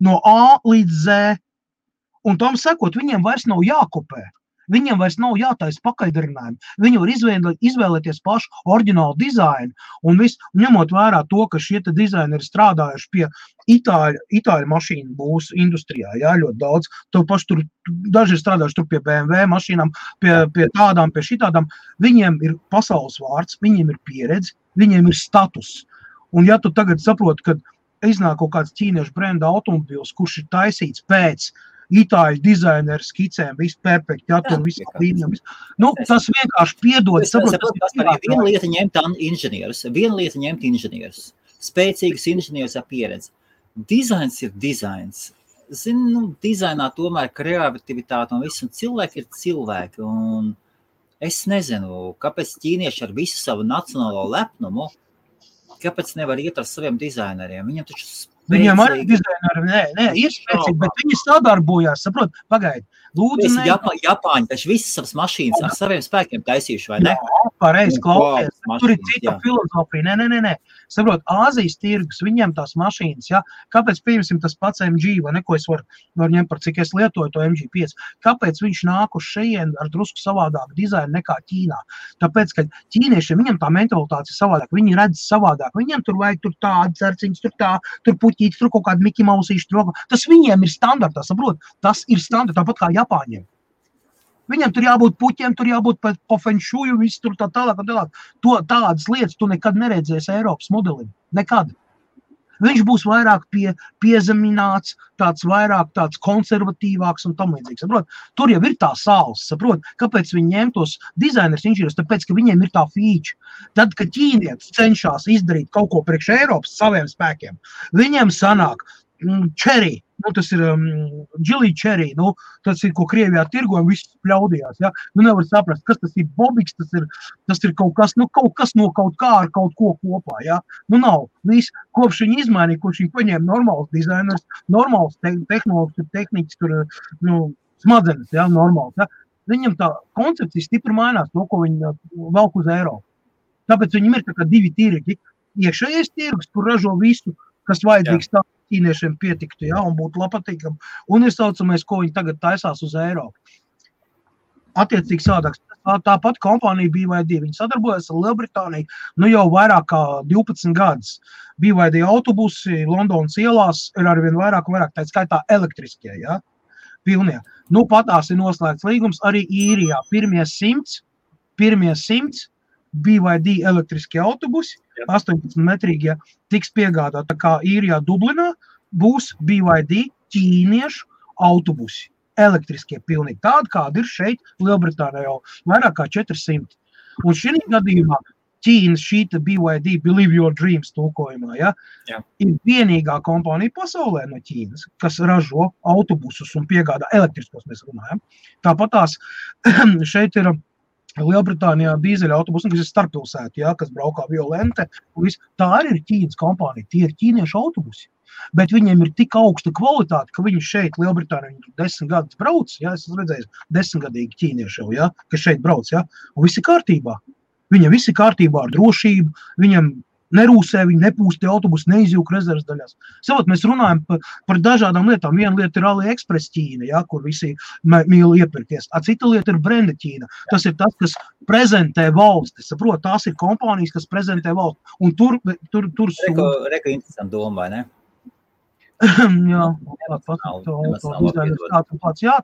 no A līdz Z. Un tam sekot, viņiem vairs nav jākopē. Viņiem vairs nav jātaisa pakaļdarinājumi. Viņi var izvēlēties pašu oriģinālu dizainu un ņemot vērā to, ka šie dizaineri strādājuši pie itāļu mašīnu būs industrijā, ļoti daudz. Tur daži ir strādājuši tur pie BMW mašīnām, pie tādām, pie šitādām. Viņiem ir pasaules vārds, viņiem ir pieredze, viņiem ir status. Un ja tu tagad saproti, ka iznāk kaut kāds ķīniešu brenda automobils, kurš ir taisīts pēc itāļu dizaineru skicēm, viss perfekti, tur viss līnijam. Tas vienkārši piedod. Viena lieta ņemt inženierus, spēcīgus inženierus ar pieredzi. Dizains ir dizains. Dizainā tomēr kreativitāte un viss, un cilvēki ir cilvēki. Un es nezinu, kāpēc ķīnieši ar visu savu nacionālo lepnumu kāpēc nevar iet ar saviem dizaineriem? Viņam taču Viņam arī dizaineri, nē, ir spēcīgi, bet viņi sadarbojās, saprot, pagaidi. Lūdzu, Japāņi taču visas savas mašīnas ar saviem spēkiem taisījuši, vai ne? Jā, pareizi, klausies. Tur ir cita filozofija. Nē. Saprot, Āzijas tirgus, viņiem tās mašīnas, ja? Kāpēc, pieņemsim, tas pats MG, vai ne, ko es varu ņemt par cik es lietoju to MG5? Kāpēc viņš nāk uz šeien ar drusku savādāku dizainu nekā Ķīnā? Tāpēc, ka ķīniešiem, viņam tā mentalitāte ir savādāk, viņi redz savādāk, viņiem tur vajag tur tādi cerciņas, tur puķītis, tur kaut kādi Miki Mausīši, tas viņiem ir standartā, saprot? Tas ir standartā, tāpat kā Japāņiem. Viņam tur jābūt puķiem, tur jābūt po fenšuju, viss tur tā tālāk. Tādas lietas tu nekad neredzēsi Eiropas modelim. Nekad. Viņš būs vairāk piezemināts, vairāk tāds konservatīvāks un tam līdzīgs. Saprot? Tur jau ir tā sāls, saprot? Kāpēc viņi ņem tos dizainerus inženierus? Tāpēc, ka viņiem ir tā feature. Tad, kad ķīnietis cenšas izdarīt kaut ko priekš Eiropas saviem spēkiem, viņiem sanāk cherry. Tas ir Geely cherry, tas ir, ko Krievijā tirgo un viss pļaudījās, ja? Nevar saprast, kas tas ir bobiks, tas ir kaut kas no kaut kā ar kaut ko kopā, ja? Nav. Viss, kopš viņi izmainīja, kopš viņi paņēma normāls dizainers, normāls tehnikas, tur, smadzenes, ja? Normāls, ja? Viņam tā koncepcija stipri mainās, to, ko viņi velk uz Eiropu. Tāpēc viņam ir tā kā divi tirgi. Iekšējais tirgus, kur ražo visu, kas vajadzīgs tā, ķīniešiem pietiktu, ja, un būtu patīkami. Un ir saucamais, ko viņi tagad taisās uz Eiropu. Attiecīgi sādāks. Tāpat kompānija BYD, viņi sadarbojas ar Lielbritāniju, jau vairāk kā 12 gadus. BYD autobusi Londonas ielās ir arvien vairāk, tā skaitā elektriskie, ja, pilnie. Patās ir noslēgts līgums arī Īrijā. Pirmie 100 BYD elektriskie autobusi, 18-metrīgie, tiks piegādāt. Tā kā Īrijā Dublinā būs BYD ķīniešu autobusi, elektriskie pilnīgi. Tādi, kādi ir šeit Lielbritānijā jau vairāk kā 400. Un šī gadījumā Ķīnas šīta BYD, Believe Your Dreams tulkojumā, ja, ir vienīgā kompānija pasaulē no Ķīnas, kas ražo autobusus un piegādā elektriskos, mēs runājam. Tāpat tās šeit ir Lielbritānijā dīzeļa autobusi, kas ir starppilsēti, ja, kas braukā violente. Tā arī ir Ķīnas kompānija, tie ir ķīniešu autobusi. Bet viņiem ir tik augsta kvalitāte, ka viņi šeit Lielbritānijā 10 gadus brauc, ja, es esmu redzējis 10-gadīgi ķīnieši jau, ja, kas šeit brauc, ja, un visi kārtībā. Viņam visi kārtībā ar drošību, viņam nerūsē, viņi nepūst autobusu, neizjūk rezerves daļās. Savot, mēs runājam par dažādām lietām. Viena lieta ir AliExpress Ķīna, ja, kur visi mīl iepirkties. Cita lieta ir brenda Ķīna. Tas ir tas, kas prezentē valsti. Saprot, tās ir kompānijas, kas prezentē valsti. Un tur Reka interesanti doma, vai ne? Jā,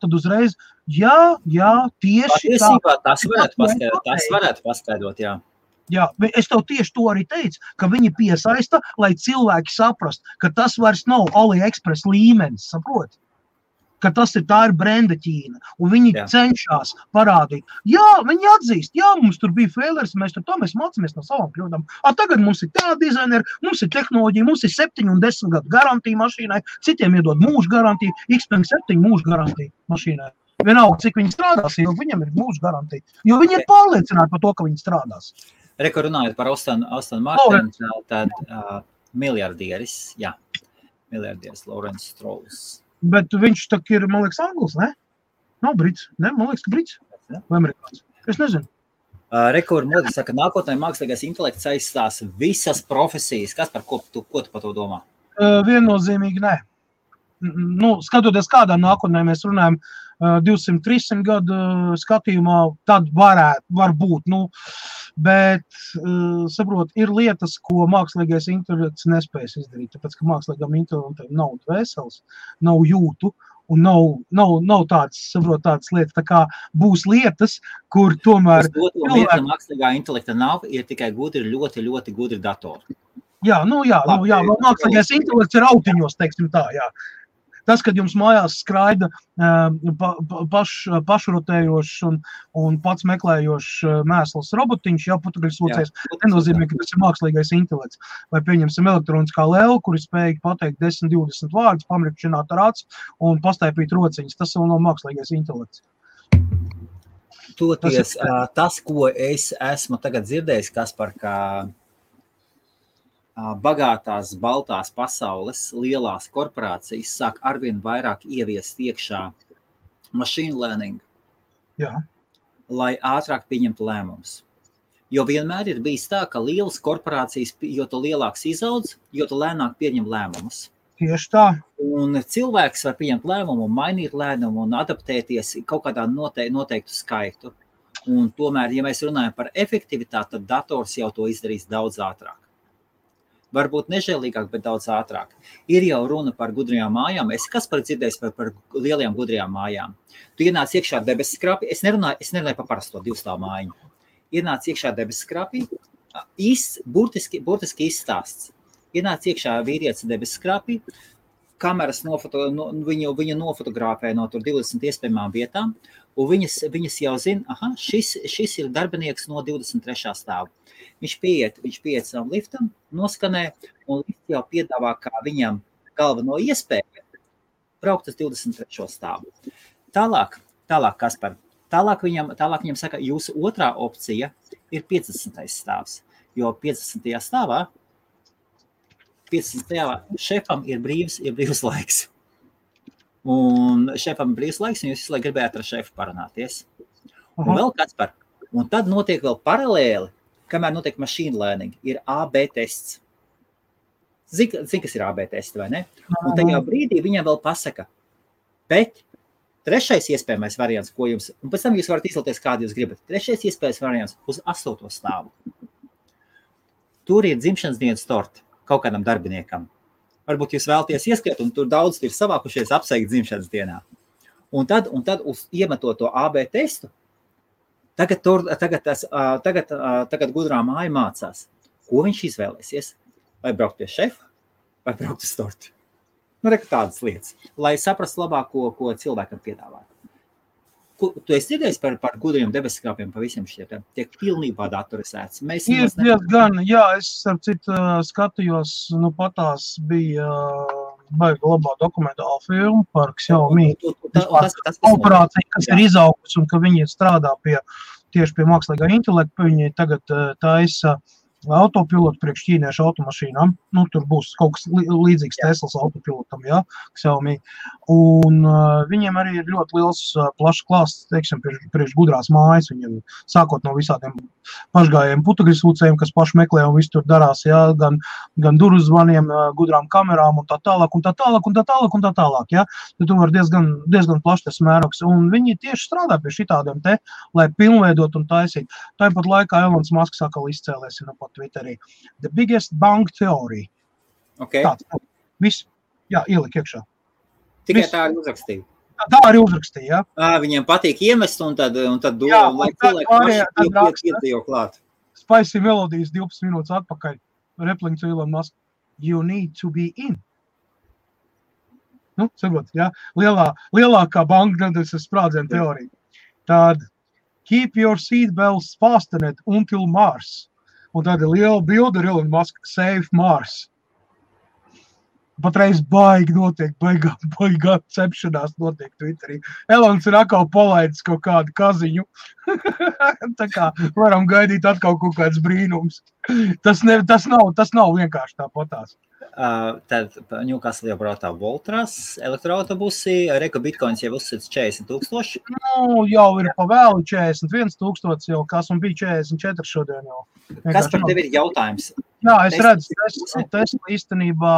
tad uzreiz, tieši tā. Tas varētu paskaidrot, jā. Jā, es tev tieši to arī teicu, ka viņi piesaista, lai cilvēki saprast, ka tas vairs nav AliExpress līmenis, saprot? Ka tā ir brenda Ķīna, un viņi cenšas parādīt. Jā, viņi atzīst, mums tur bija failers, mēs mācāmies no savām kļūdām. Tagad mums ir tā dizaineri, mums ir tehnoloģija, mums ir 7 un 10 gadu garantija mašīnai, citiem iedod mūža garantiju, Xpeng 7 mūža garantija mašīnai. Vienalga, cik viņi strādās, jo viņam ir mūža garantija, jo viņi ir pārliecināti par to, ka viņi strādās. Reka runājot par Aston Martin, tad miljardieris Lawrence Strauss. Bet viņš tak ir, man liekas, anglis, ne? Nav brits, ne? Man liekas, ka brits vai amerikāns. Es nezinu. Reka Modi saka, nākotnē mākslīgais intelekts aizstās visas profesijas. Kas ko tu par to domā? Viennozīmīgi nē. Skatoties kādā nākotnē mēs runājam 200-300 gadu skatījumā, tad var būt, bet, saprot, ir lietas, ko mākslīgais intelekts nespējas izdarīt, tāpēc, ka mākslīgam intelektam nav dvēseles, nav jūtu, un nav tādas lietas, tā kā būs lietas, kur tomēr... Mākslīgā intelekta nav, ir tikai gudri, ļoti, ļoti gudri datori. Mākslīgais intelekts ir autiņos, teiksim tā, jā. Tas, kad jums mājās skraida pašrotējošs un pats meklējošs mēsls robotiņš, putruļsūcējs, nenozīmē, ka tas ir mākslīgais intelekts. Vai pieņemsim elektroniskā lēlu, kuri spēj pateikt 10-20 vārdus, pamrikšķināt ar acu un pastaipīt rociņas. Tas vēl nav mākslīgais intelekts. Tas, ko es esmu tagad dzirdējis, Kaspar, ka bagātās, baltās pasaules lielās korporācijas sāk arvien vairāk ieviest iekšā machine learning, lai ātrāk pieņemtu lēmumus. Jo vienmēr ir bijis tā, ka lielas korporācijas, jo tu lielāks izaudz, jo tu lēnāk pieņem lēmumus. Tieši tā. Un cilvēks var pieņemt lēmumu, mainīt lēmumu un adaptēties kaut kādā noteiktu skaitu. Un tomēr, ja mēs runājam par efektivitāti, tad dators jau to izdarīs daudz ātrāk. Varbūt nežēlīgāk, bet daudz ātrāk. Ir jau runa par gudrajām mājām. Kas par dzirdējis par lielajām gudrajām mājām? Tu ienāc iekšā debesskrāpī. Es nerunāju par parasto 2-stāvu mājiņu. Ienāc iekšā debesskrāpī, burtiski izstāsts. Ienāc iekšā vīrietis debesskrāpī, kameras viņu nofotografē no tur 20 iespējamām vietām, un viņas jau zina, šis ir darbinieks no 23. stāvu. Viņš pieiet savam liftam, noskanē, un lifts jau piedāvā kā viņam galveno iespēju braukt uz 23. stāvu. Tālāk, Kaspar, tālāk viņam saka, jūsu otrā opcija ir 50. stāvs, jo 50. stāvā šefam ir brīvs laiks. Un šefam ir brīvs laiks, un jūs visu laiku gribētu ar šefu parunāties. Un vēl Kaspar, un tad notiek vēl paralēli, kamēr notiek machine learning, ir AB tests. Zini, kas ir AB tests, vai ne? Un tajā brīdī viņam vēl pasaka, bet trešais iespējamais variants, ko jums, un pēc tam jūs varat izlēties, kādu jūs gribat. Trešais iespējamais variants uz 8. stāvu. Tur ir dzimšanas dienas torti kaut kādam darbiniekam. Varbūt jūs vēlaties ieskriet, un tur daudz ir savākušies apsveikt dzimšanas dienā. Un tad iemetot to AB testu, tagad gudrā māja mācās, ko viņš izvēlēsies. Vai braukt pie šefa, vai braukt uz torti. Tādas lietas, lai saprastu labāk, ko cilvēkam piedāvāt. Tu esi dzirdējis par gudriem debesskrāpiem pa visiem šiem? Tiek pilnībā datorizēts. Ir diezgan, jā, es ar citu skatījos, patās bija baigi labā dokumentāla filma par Xiaomi operāciju, kas ir izaugusi un ka viņi strādā tieši pie mākslīgā intelekta. Viņi tagad taisa autopilotu priekš ķīniešu automašīnām. Tur būs kaut kas līdzīgs Teslas autopilotam, Xiaomi. Un viņiem arī ir ļoti liels plašs klāsts, teiksim, priekš gudrās mājas. Viņiem sākot no visādiem pašgājiem putekļsūcējiem, kas paši meklē un viss tur darās, gan durvju zvaniem, gudrām kamerām un tā tālāk. Tad tur var diezgan plašs tas mērogs. Un viņi tieši strādā pie šitādiem lai pilnveidot un taisīt. Tāpat laikā Elons Musks atkal izcēlēs pat Twitterī. The biggest bang theory. Okay. Tāds. Viss, ielika iekšā. Tikai tā arī uzrakstīja. Tā arī uzrakstīja, Viņiem patīk iemest un tad lai cilvēki paši iedzīvo klāt. Spicy Melodies 12 minūtes atpakaļ. Repling to Elon Musk. You need to be in. Saprot, lielākā banka sprādziena teorija. Tad keep your seatbelts fastened until Mars. Un tāda liela bilde ar Elon Musk, save Mars. Patreiz baigi notiek, baigā cepšanās notiek Twitterī. Elons ir atkal palaidis kaut kādu kaziņu. Tā kā varam gaidīt atkal kaut kāds brīnums. Tas nav vienkārši tāpatās. Tad Ņūkasl jau brautā Voltras, elektroautobusi, Reka Bitcoins jau uzsits 40,000. Jau ir pa vēlu 41,000 jau, kas un bija 44 šodien jau. Kas par tevi ir jautājums? Jā, es redzu, Tesla īstenībā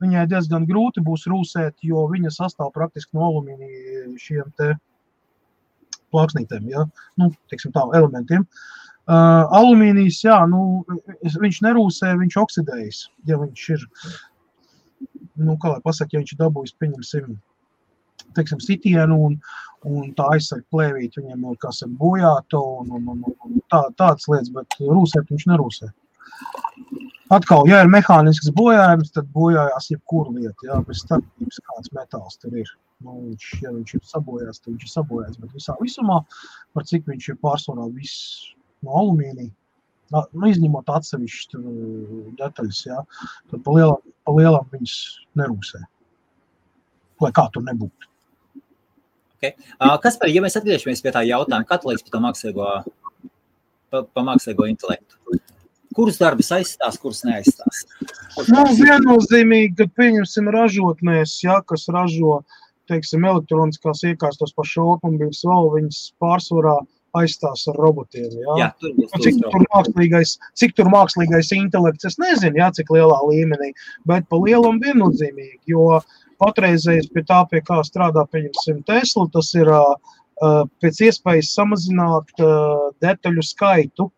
viņai diezgan grūti būs rūsēt, jo viņa sastāv praktiski no alumīnija šiem te plāksnītēm, teiksim tā, elementiem. Alumīnijs, viņš nerūsē, viņš oksidējas, ja viņš ir, kā lai pasaka, ja viņš ir dabūjis, pieņemsim, teiksim, sitienu un tā aizsaka plēvīt, viņiem ir, kas ir bojāta un tādas lietas, bet rūsēt viņš nerūsē. Atkal, ja ir mehānisks bojājums, tad bojājās jebkura lieta, bez starpības kāds metāls tur ir. Ja viņš ir sabojās, tad viņš ir sabojās, bet visumā, par cik viņš ir pārsvarā viss no alumīnija, izņemot atsevišķi detaļas, tad pa lielam viņas nerūsē, lai kā tur nebūtu. Okay. Kaspar, ja mēs atgriežamies pie tā jautājuma, kā tu liekas par mākslīgo intelektu? Kuras darbas aizstās, kuras neaizstās? Viennozīmīgi, kad pieņemsim ražotnēs, kas ražo, teiksim, elektroniskās iekārtas pašu automobīļus vēl, viņas pārsvarā aizstās ar robotiem, Jā, cik tur mākslīgais intelekts, es nezinu, cik lielā līmenī, bet pa lielam viennozīmīgi, jo patreizējais pie tā, pie kā strādā, pieņemsim Tesla, tas ir pēc iespējas samazināt detaļu skaitu.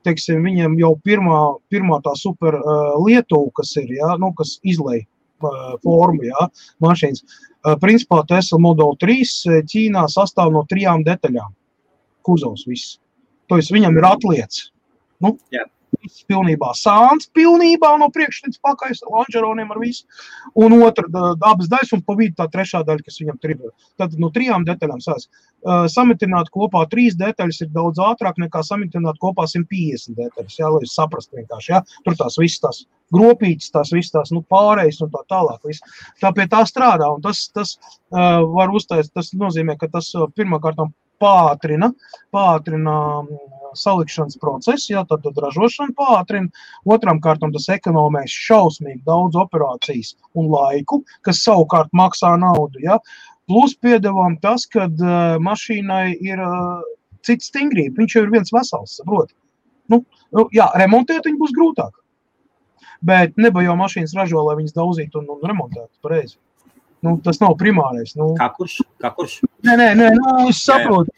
Teiksim, viņiem jau pirmā tā super Lietuva, kas ir, kas izlej formu, mašīnas. Principā Tesla Model 3 Ķīnā sastāv no 3 detaļām. Kuzovs viss. To viņam ir atliec. Viss pilnībā sāns, pilnībā no priekš līdz pakaļ, lonžeroniem ar visu. Un otra abas daļas un pa vidu tā trešā daļa, kas viņam tur ir. Tad no 3 detaļām sās. Samitināt kopā 3 detaļas ir daudz ātrāk nekā samitināt kopā 150 detaļas, lai jūs saprastu vienkārši, Tur tās visas tās gropītas, tās visas tās, pārējas un tā tālāk. Tā pie tā strādā, un tas var uztaisīt, tas nozīmē, ka tas pirmkārtām pātrina salikšanas procesu, tad ražošana pātrina. Otram kārtam tas ekonomēs šausmīgi daudz operācijas un laiku, kas savukārt maksā naudu, Plus piedevām tas, kad mašīnai ir cits stingrība. Viņš jau ir viens vesels, saproti. Remontēt viņu būs grūtāk. Bet neba jau mašīnas ražo, lai viņas daudzītu un remontētu pareizi. Tas nav primārais. Kā kurš? Nē, es saprotu.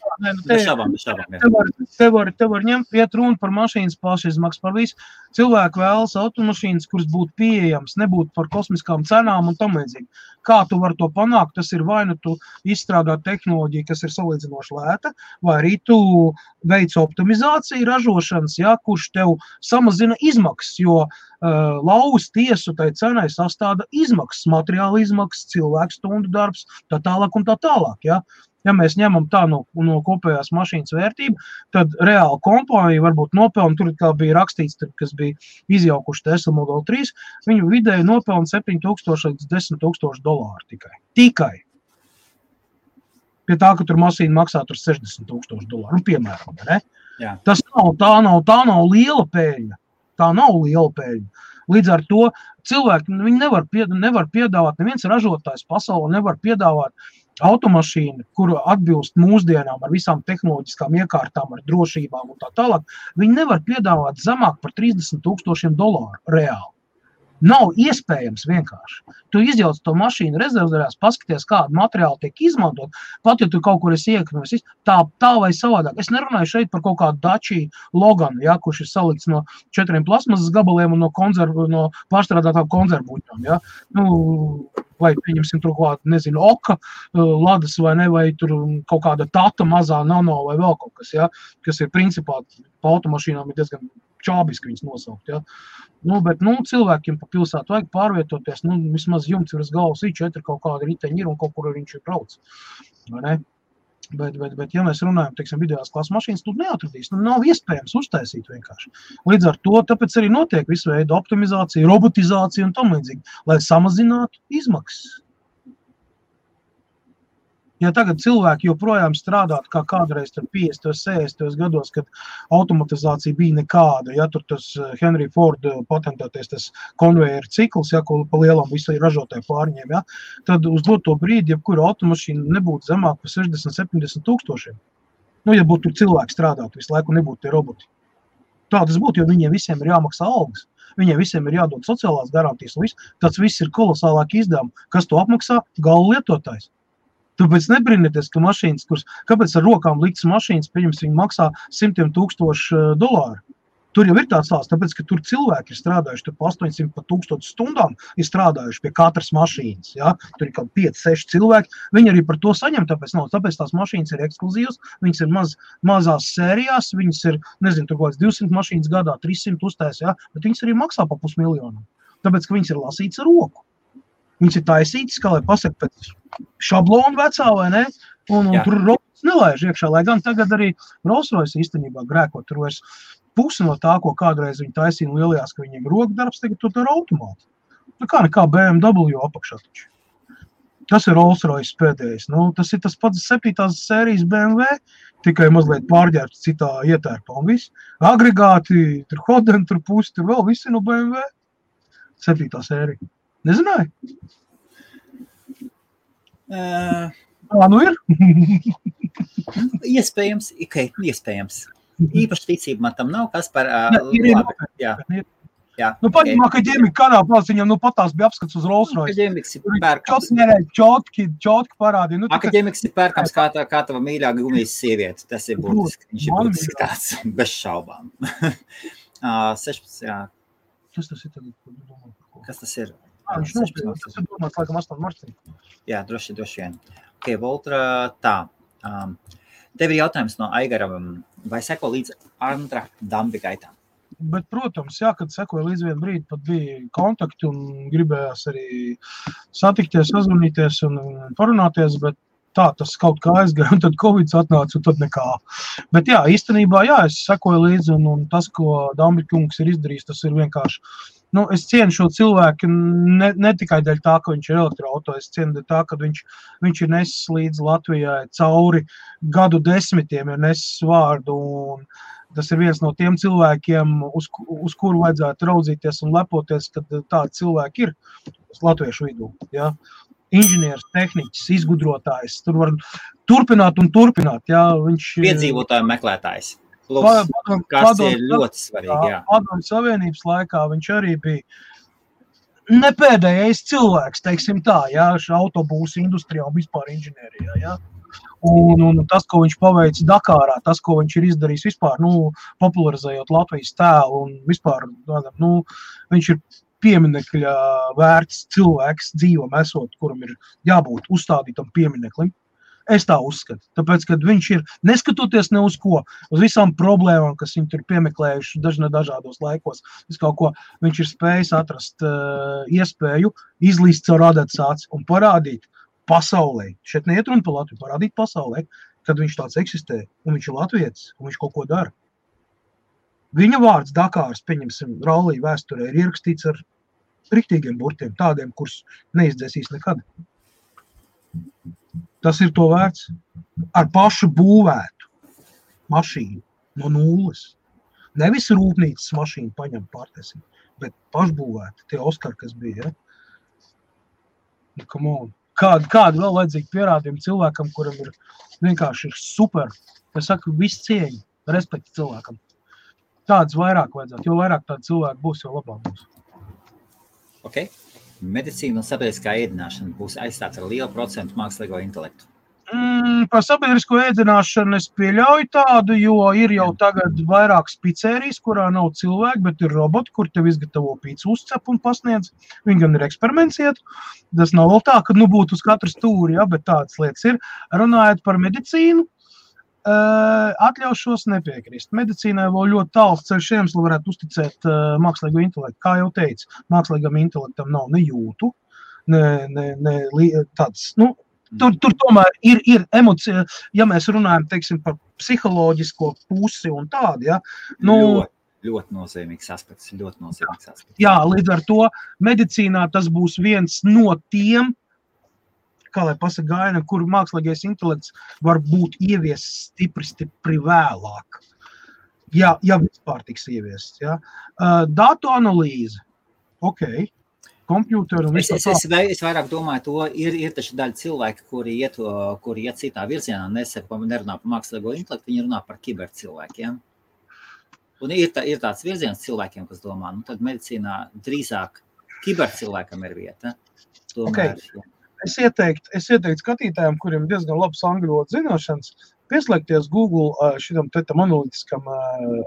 Te var ņemt iet runa par mašīnas pašizmaksu, par visu. Cilvēki vēlas automašīnas, kuras būtu pieejams, nebūtu par kosmiskām cenām un tam līdzīgi. Kā tu vari to panākt? Tas ir vai nu tu izstrādā tehnoloģiju, kas ir salīdzinoši lēta, vai arī tu veic optimizāciju ražošanas, kurš tev samazina izmaksas, jo lauz tiesu tai cenai sastāda izmaksas, materiāla izmaksas, cilvēku stundu darbs, tā tālāk un tā tālāk, Ja mēs ņemam tā no kopējās mašīnas vērtību, tad reāli kompānija varbūt nopelna, tur kā bija rakstīts, kas bija izjaukuši Tesla Model 3, viņu vidēji nopelna $7,000 līdz $10,000 tikai. Pie tā, ka tur mašīna maksā tur $60,000, piemēram, ne? Tas tā nav liela peļņa. Tā nav liela peļņa. Līdz ar to cilvēki viņi nevar piedāvāt, neviens ražotājs pasaulē nevar piedāvāt automašīnu, kuru atbilst mūsdienām ar visām tehnoloģiskām iekārtām, ar drošībām un tā tālāk. Viņi nevar piedāvāt zemāk par $30,000 reāli. Nav iespējams vienkārši. Tu izjauc to mašīnu rezervdārās, paskaties, kādu materiālu tiek izmantot, pat ja tu kaut kur esi iekļuvis, tā vai savādāk. Es nerunāju šeit par kaut kādu Dacia Logan, kurš ir salikts no 4 plasmasas gabaliem un no pārstrādātām konzervbuļķām, vai pieņemsim tur kaut kādu, nezinu, Oka, Ladas vai ne, vai tur kaut kāda Tata mazā nano vai vēl kaut kas, kas ir principā pa automašīnām ir diezgan čābiski viņas nosaukt, bet, cilvēkiem pa pilsētu vajag pārvietoties, vismaz jumts virs galvas I4 kaut kāda riteņi ir un kaut kur viņš ir brauc, vai ne? Bet, ja mēs runājam, teiksim, vidējās klases mašīnas, tu neatradīs, nav iespējams uztaisīt vienkārši. Līdz ar to, tāpēc arī notiek visu veidu optimizācija, robotizācija un tam līdzīgi, lai samazinātu izmaksas. Ja tagad cilvēki joprojām strādāt kā kādreiz 50, 60 gados, kad automatizācija bija nekāda, tur tas Henry Ford patentēties tas konvejeru cikls, ko pa lielam visu ražotāju pārņēm, tad uz doto brīdi, jebkura automašīna nebūtu zemāk par 60-70 tūkstošiem. Ja būtu tur cilvēki strādāt visu laiku, nebūtu tie roboti. Tā tas būtu, jo viņiem visiem ir jāmaksā algas. Viņiem visiem ir jādod sociālās garantijas un viss. Tas viss ir kolosālāki izdevumi. Kas to apmaksā? Gala lietotājs. Tāpēc nebrīnieties, ka mašīnas, kāpēc ar rokām liktas mašīnas, pieņems, viņi maksā $100,000. Tur jau ir tāds stāsts, tāpēc, ka tur cilvēki ir strādājuši, tur pa 800 pa 1000 stundām ir strādājuši pie katras mašīnas, tur ir kaut 5-6 cilvēki, viņi arī par to saņem, tāpēc tās mašīnas ir ekskluzīvas, viņas ir mazās sērijās, viņas ir, nezinu, tur kaut 200 mašīnas gadā, 300 uztais, bet viņas arī maksā pa $500,000, tāpēc, ka viņas ir lasītas ar roku. Viņas ir taisītas, kā lai pasaka pēc šablonu vecā, vai ne? Un tur robots nelaiž iekšā, lai gan tagad arī Rolls-Royce īstenībā grēko. Tur vairs pusi no tā, ko kādreiz viņi taisīja lielajās, ka viņiem rokdarbs, tagad tur ar automātu. Nekā BMW apakšā taču. Tas ir Rolls-Royce pēdējais. Nu, tas ir tas pats 7. sērijas BMW, tikai mazliet pārģērbts citā ietērpā un viss. Agregāti, tur Hoden, tur pusi, tur vēl visi no BMW. 7. sērija. Nezināji? Nu ir? Iespējams, iespējams. Īpaši ticība man tam nav, kas par... Jā. Nu, paņemā, ka ģemika kādā plās viņam, patās bija apskats uz Rolls-Royce. Ģemiks ir pērkams. Čotki parādīja. Nu, Ģemiks ir pērkams kā tava mīļā gumijas sieviete. Tas ir būtiski. Viņš ir būtiski tāds bez šaubām. 16, jā. Kas tas ir tagad? Kas tas ir? Viņš nospēlēs. Tas ir domāts, laikam, 8 martī. Jā, droši vien. Ok, Voltra, tā. Tev ir jautājums no Aigara, vai seko līdz Andra Dambi gaitām? Bet, protams, jā, kad sekoja līdz vienu brīdi, pat bija kontakti un gribējās arī satikties, sazvanīties un parunāties, bet tā, tas kaut kā aizgāja, un tad Covid atnāca, un tad nekā. Bet jā, īstenībā, jā, es sekoju līdzi, un tas, ko Dambi kungs ir izdarījis, tas ir vienkārši, es cienu šo cilvēku ne tikai dēļ tā, ka viņš ir elektroauto, es cienu dēļ tā, ka viņš ir nesis līdz Latvijai cauri gadu desmitiem, ir nesis vārdu, un tas ir viens no tiem cilvēkiem, uz kuru vajadzētu raudzīties un lepoties, kad tādi cilvēki ir latviešu vidū. Ja? Inženieris, tehniķis, izgudrotājs, tur var turpināt un turpināt. Ja? Piedzīvotāju meklētājs. Kas ir ļoti svarīgi. Jā. Padomju Savienības laikā viņš arī bija nepēdējais cilvēks, teiksim tā, ja? Autobūsu industrijā un vispār inženierijā. Ja? Un tas, ko viņš paveic Dakārā, tas, ko viņš ir izdarījis vispār, popularizējot Latvijas tēlu un vispār, viņš ir pieminekļa vērts cilvēks dzīvam esot, kuram ir jābūt uzstādītam piemineklim. Es tā uzskatu, tāpēc, kad viņš ir, neskatoties ne uz ko, uz visām problēmām, kas viņi tur piemeklējuši dažādos laikos, viņš ir spējis atrast iespēju izlīst caur adetsāci un parādīt pasaulē, šeit neiet runa par Latviju, parādīt pasaulē, kad viņš tāds eksistē, un viņš ir latvietis, un viņš kaut ko dara. Viņa vārds Dakāras, pieņemsim, rallija vēsturē ir ierakstīts ar riktīgiem burtiem, tādiem, kurus neizdzēsīs nekad. Tas ir to vērts. Ar pašu būvētu mašīnu no nulles. Nevis rūpnīcas mašīnu paņem pārtēsim, bet pašbūvētu tie Oskari, kas bija. Ja? Come on. Kādu vēl vajadzīgi pierādījumi cilvēkam, kuram ir vienkārši ir super, es saku, viss cieņa, respekti cilvēkam. Tāds vairāk vajadzētu, jo vairāk tādu cilvēku būs, jo labāk būs. Ok. Medicīna un sabiedriskā ēdināšana būs aizstāts ar lielu procentu mākslīgo intelektu. Par sabiedrisko ēdināšanu es pieļauju tādu, jo ir jau tagad vairākas pizzerijas, kurā nav cilvēki, bet ir roboti, kur tev izgatavo pīcu uzcep un pasniedz. Viņi gan ir eksperiments iet. Tas nav vēl tā, ka būtu uz katru stūri, ja, bet tādas lietas ir. Runājot par medicīnu, atļaušos nepiekrist. Medicīnai vēl ļoti tāls ceļš ejams, lai varētu uzticēt mākslīgo intelektu. Kā jau teicu, mākslīgam intelektam nav ne jūtu, ne tāds, Tur tomēr ir emocija, ja mēs runājam, teiksim, par psiholoģisko pusi un tādu, ja. Ļoti nozīmīgs aspekts, Jā, līdz ar to medicīnā tas būs viens no tiem, kā lai pasaka gaina, kur mākslīgais intelekts var būt ieviests stipri vēlāk. Ja vispār tiks ieviests, ja. Datu analīze, ok. Kompjūteru un visu tā. Es vairāk domāju to, ir taču daļa cilvēki, kuri iet citā virzienā, nerunā par mākslīgo intelektu, viņi runā par kibercilvēkiem. Un ir tāds virziens cilvēkiem, kas domā, tad medicīnā drīzāk kibercilvēkam ir vieta. Tomēr, okay. Es ieteiktu skatītājiem, kuriem diezgan labs angļu valodas zināšanas, pieslēgties Google šitam analītiskam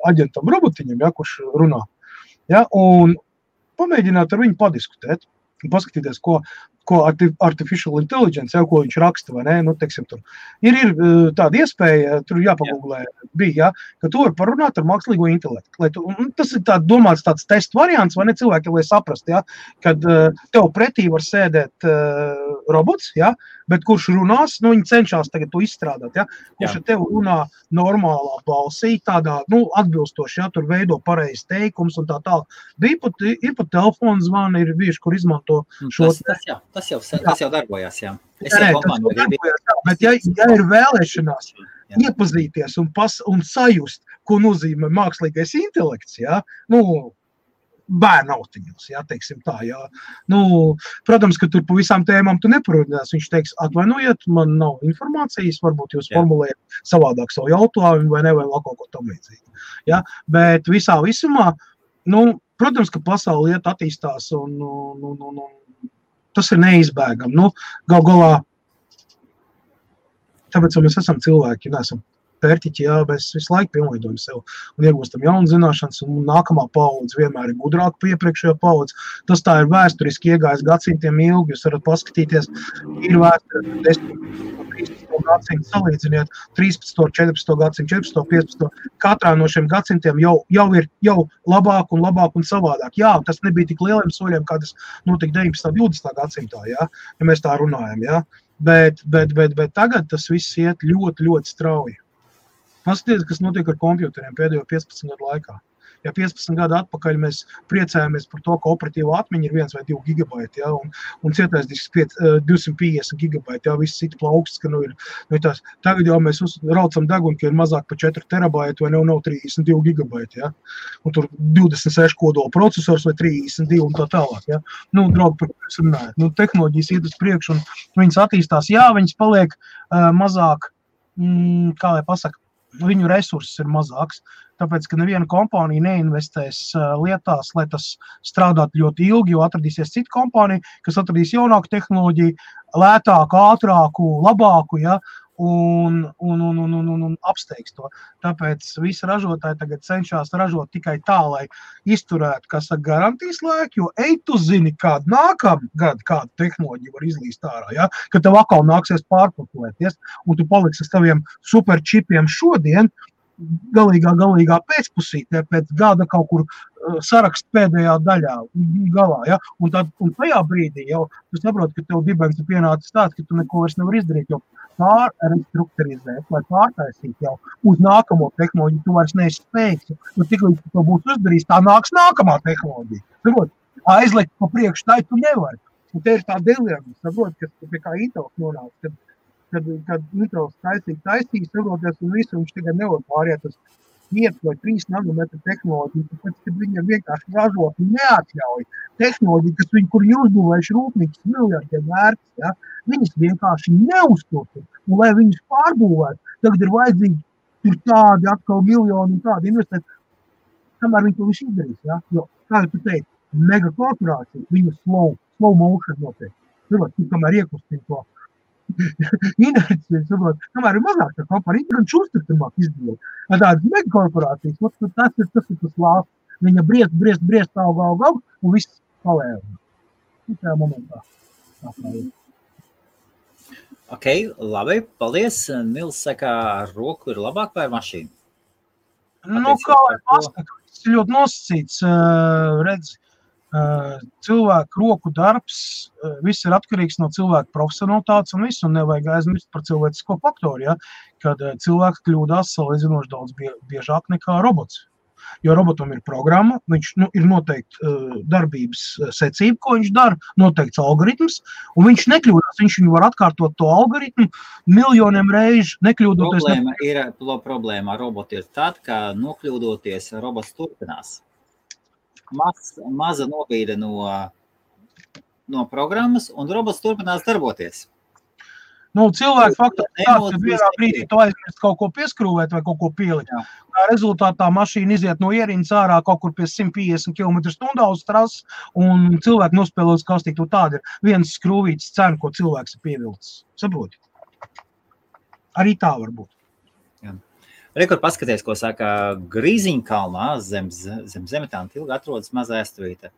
aģentam robotiņam, ja, kurš runā. Ja, un pamēģināt ar viņu padiskutēt un paskatīties, ko artificial intelligence, jau ko viņš raksta, vai ne, teiksim, tur. Ir tāda iespēja, tur jāpagūglē bija, ja, ka tu var parunāt ar mākslīgo intelektu. Tas ir domāts tāds testu variants, vai ne cilvēki, lai saprast, ja, kad tev pretī var sēdēt robots, ja, bet kurš runās, viņi cenšas tagad to izstrādāt, ja, kurš ar tev runā normālā balsī, tādā, atbilstoši, ja, tur veido pareizi teikums un tā. Ir pat telefonu zvani, ir bijuši, kur izmanto šo. Tas jau darbojās, jā. Bet ja ir vēlēšanās iepazīties un sajust, ko nozīmē mākslīgais intelekts, jā, bērnu autiņos, jā, teiksim tā, jā. Protams, ka tur pa visām tēmām tu neparunās. Viņš teiks, atvainojiet, man nav informācijas, varbūt jūs formulējat savādāk savu jautājumu vai vēl kaut ko tam līdzīgi. Jā, bet visā visumā, protams, ka pasaule iet attīstās un tas ir neizbēgami. Gal galā, tāpēc, ka mēs esam cilvēki, neesam pērtiķi, jā, mēs visu laiku pielīdojam sev un iegūstam jaunu zināšanas, un nākamā paudze vienmēr ir gudrāka par iepriekšējo paudzi. Tas tā ir vēsturiski iegājis gadsimtiem ilgi, jūs varat paskatīties, ir vēsture 10. 13. gadsimtu, salīdziniet 13. 14. gadsimtu, 14. 15. Katrā no šiem gadsimtiem jau ir labāk un savādāk. Jā, tas nebija tik lieliem soļiem, kā tas notika 19. 20. gadsimtā, jā, ja mēs tā runājam, jā. Bet tagad tas viss iet ļoti, ļoti strauji. Paskatieties, kas notiek ar kompjuteriem pēdējo 15 gadu laikā. Ja 15 gadu atpakaļ mēs priecājamies par to, ka operatīva atmiņa ir 1 vai 2 gigabaiti, ja, un cietais disks 250 gigabaiti, ja, viss citi plauksts, ka ir tās. Tagad jau mēs raucam deguni, ka ir mazāk par 4 terabaiti vai nav 32 gigabaiti, ja, un tur 26 kodola procesors vai 32 un tā tālāk, ja. Draugi, par ko es runāju. Tehnoloģijas iet uz priekšu un viņas attīstās, jā, viņas paliek mazāk, kā lai pasaka, viņu resursus ir mazāks, tāpēc, ka neviena kompānija neinvestēs lietās, lai tas strādātu ļoti ilgi, jo atradīsies cita kompānija, kas atradīs jaunāku tehnoloģiju, lētāku, ātrāku, labāku, ja, un apsteigs to. Tāpēc visi ražotāji tagad cenšas ražot tikai tā, lai izturētu, kas ar garantijas laiku, jo tu zini, kādu nākamgad kādu tehnoloģiju var izlīst ārā, ja? Ka tev atkal nāksies pārpakotēties, un tu paliksi ar saviem superčipiem šodien, galīgā pēcpusītē, pēc gada kaut kur sarakst pēdējā daļā, galā, ja? Un tajā brīdī jau tu saproti, ka tev dibens ir pienācis tāds, ka tu neko vairs nevar izdarīt, jo pārrestrukturizēt vai pārtaisīt jau uz nākamo tehnoloģiju, tu vairs neesi spējīgs. Tiklīdz tu to būs uzdarījis, tā nāks nākamā tehnoloģija. Saprot, aizlikt pa priekšu tai tu nevari. Un te ir tā dilemma, saprot, kas pie kā Intels nonāca, kad Intels taisīs, saproties un visu, viņš tagad nevar pāriet uz 5 vai 3 nanometru tehnoloģiju, tāpēc, kad viņam vienkārši ražot neatļauj tehnoloģiju, kas viņi, kur ir uzbūvējuši rūpnīcas miljardiem vērts, ja, viņas vienkārši neuzturtu. Un, lai viņas pārbūvētu, tagad ir vajadzīgi tur tādi atkal miljoni un tādi investēt, kamēr viņi to visu izdarīs. Ja? Jo, kā tu teici, megakorporācija, viņa slow motion notiek. Tu kamēr iekustīja to inerciju, kamēr ir mazāk tā kompānija, gan šūstartamāk izdevot. Tādas megakorporācijas, tas ir tas lāsts. Viņa briest, aug, un viss palēva. Tā momentā. Ok, labi, paldies. Nils saka, ar roku ir labāk vai ar mašīnu? Kā lai pasaka, tas ir ļoti nosacīts, redz, cilvēku roku darbs, viss ir atkarīgs no cilvēku profesionalitātes un visu, un nevajag aizmirst par cilvēcisko faktoru, ja, kad cilvēks kļūdās salīdzinoši daudz biežāk nekā robots. Jo robotam ir programma, viņš ir noteikti darbības secība, ko viņš dara, noteikts algoritms, un viņš nekļūdās, viņš var atkārtot to algoritmu miljoniem reižu, nekļūdoties. Problēma ar robotu ir tad, ka nokļūdoties robots turpinās. Maza nobīde no programmas, un robots turpinās darboties. Cilvēki faktiski tāds, ka vienā brīdī tu aizmirst kaut ko pieskrūvēt vai kaut ko pielikt. Tā rezultātā mašīna iziet no ierīnas ārā kaut kur pie 150 km/h uz trases, un cilvēki nospēlē uz kastīt. Tāda ir viens skrūvītas cena, ko cilvēks ir pievilcis. Saproti? Arī tā var būt. Rekur paskaties, ko saka Grīziņkalnā zem Zemetāna tilga atrodas maza ēstuvīte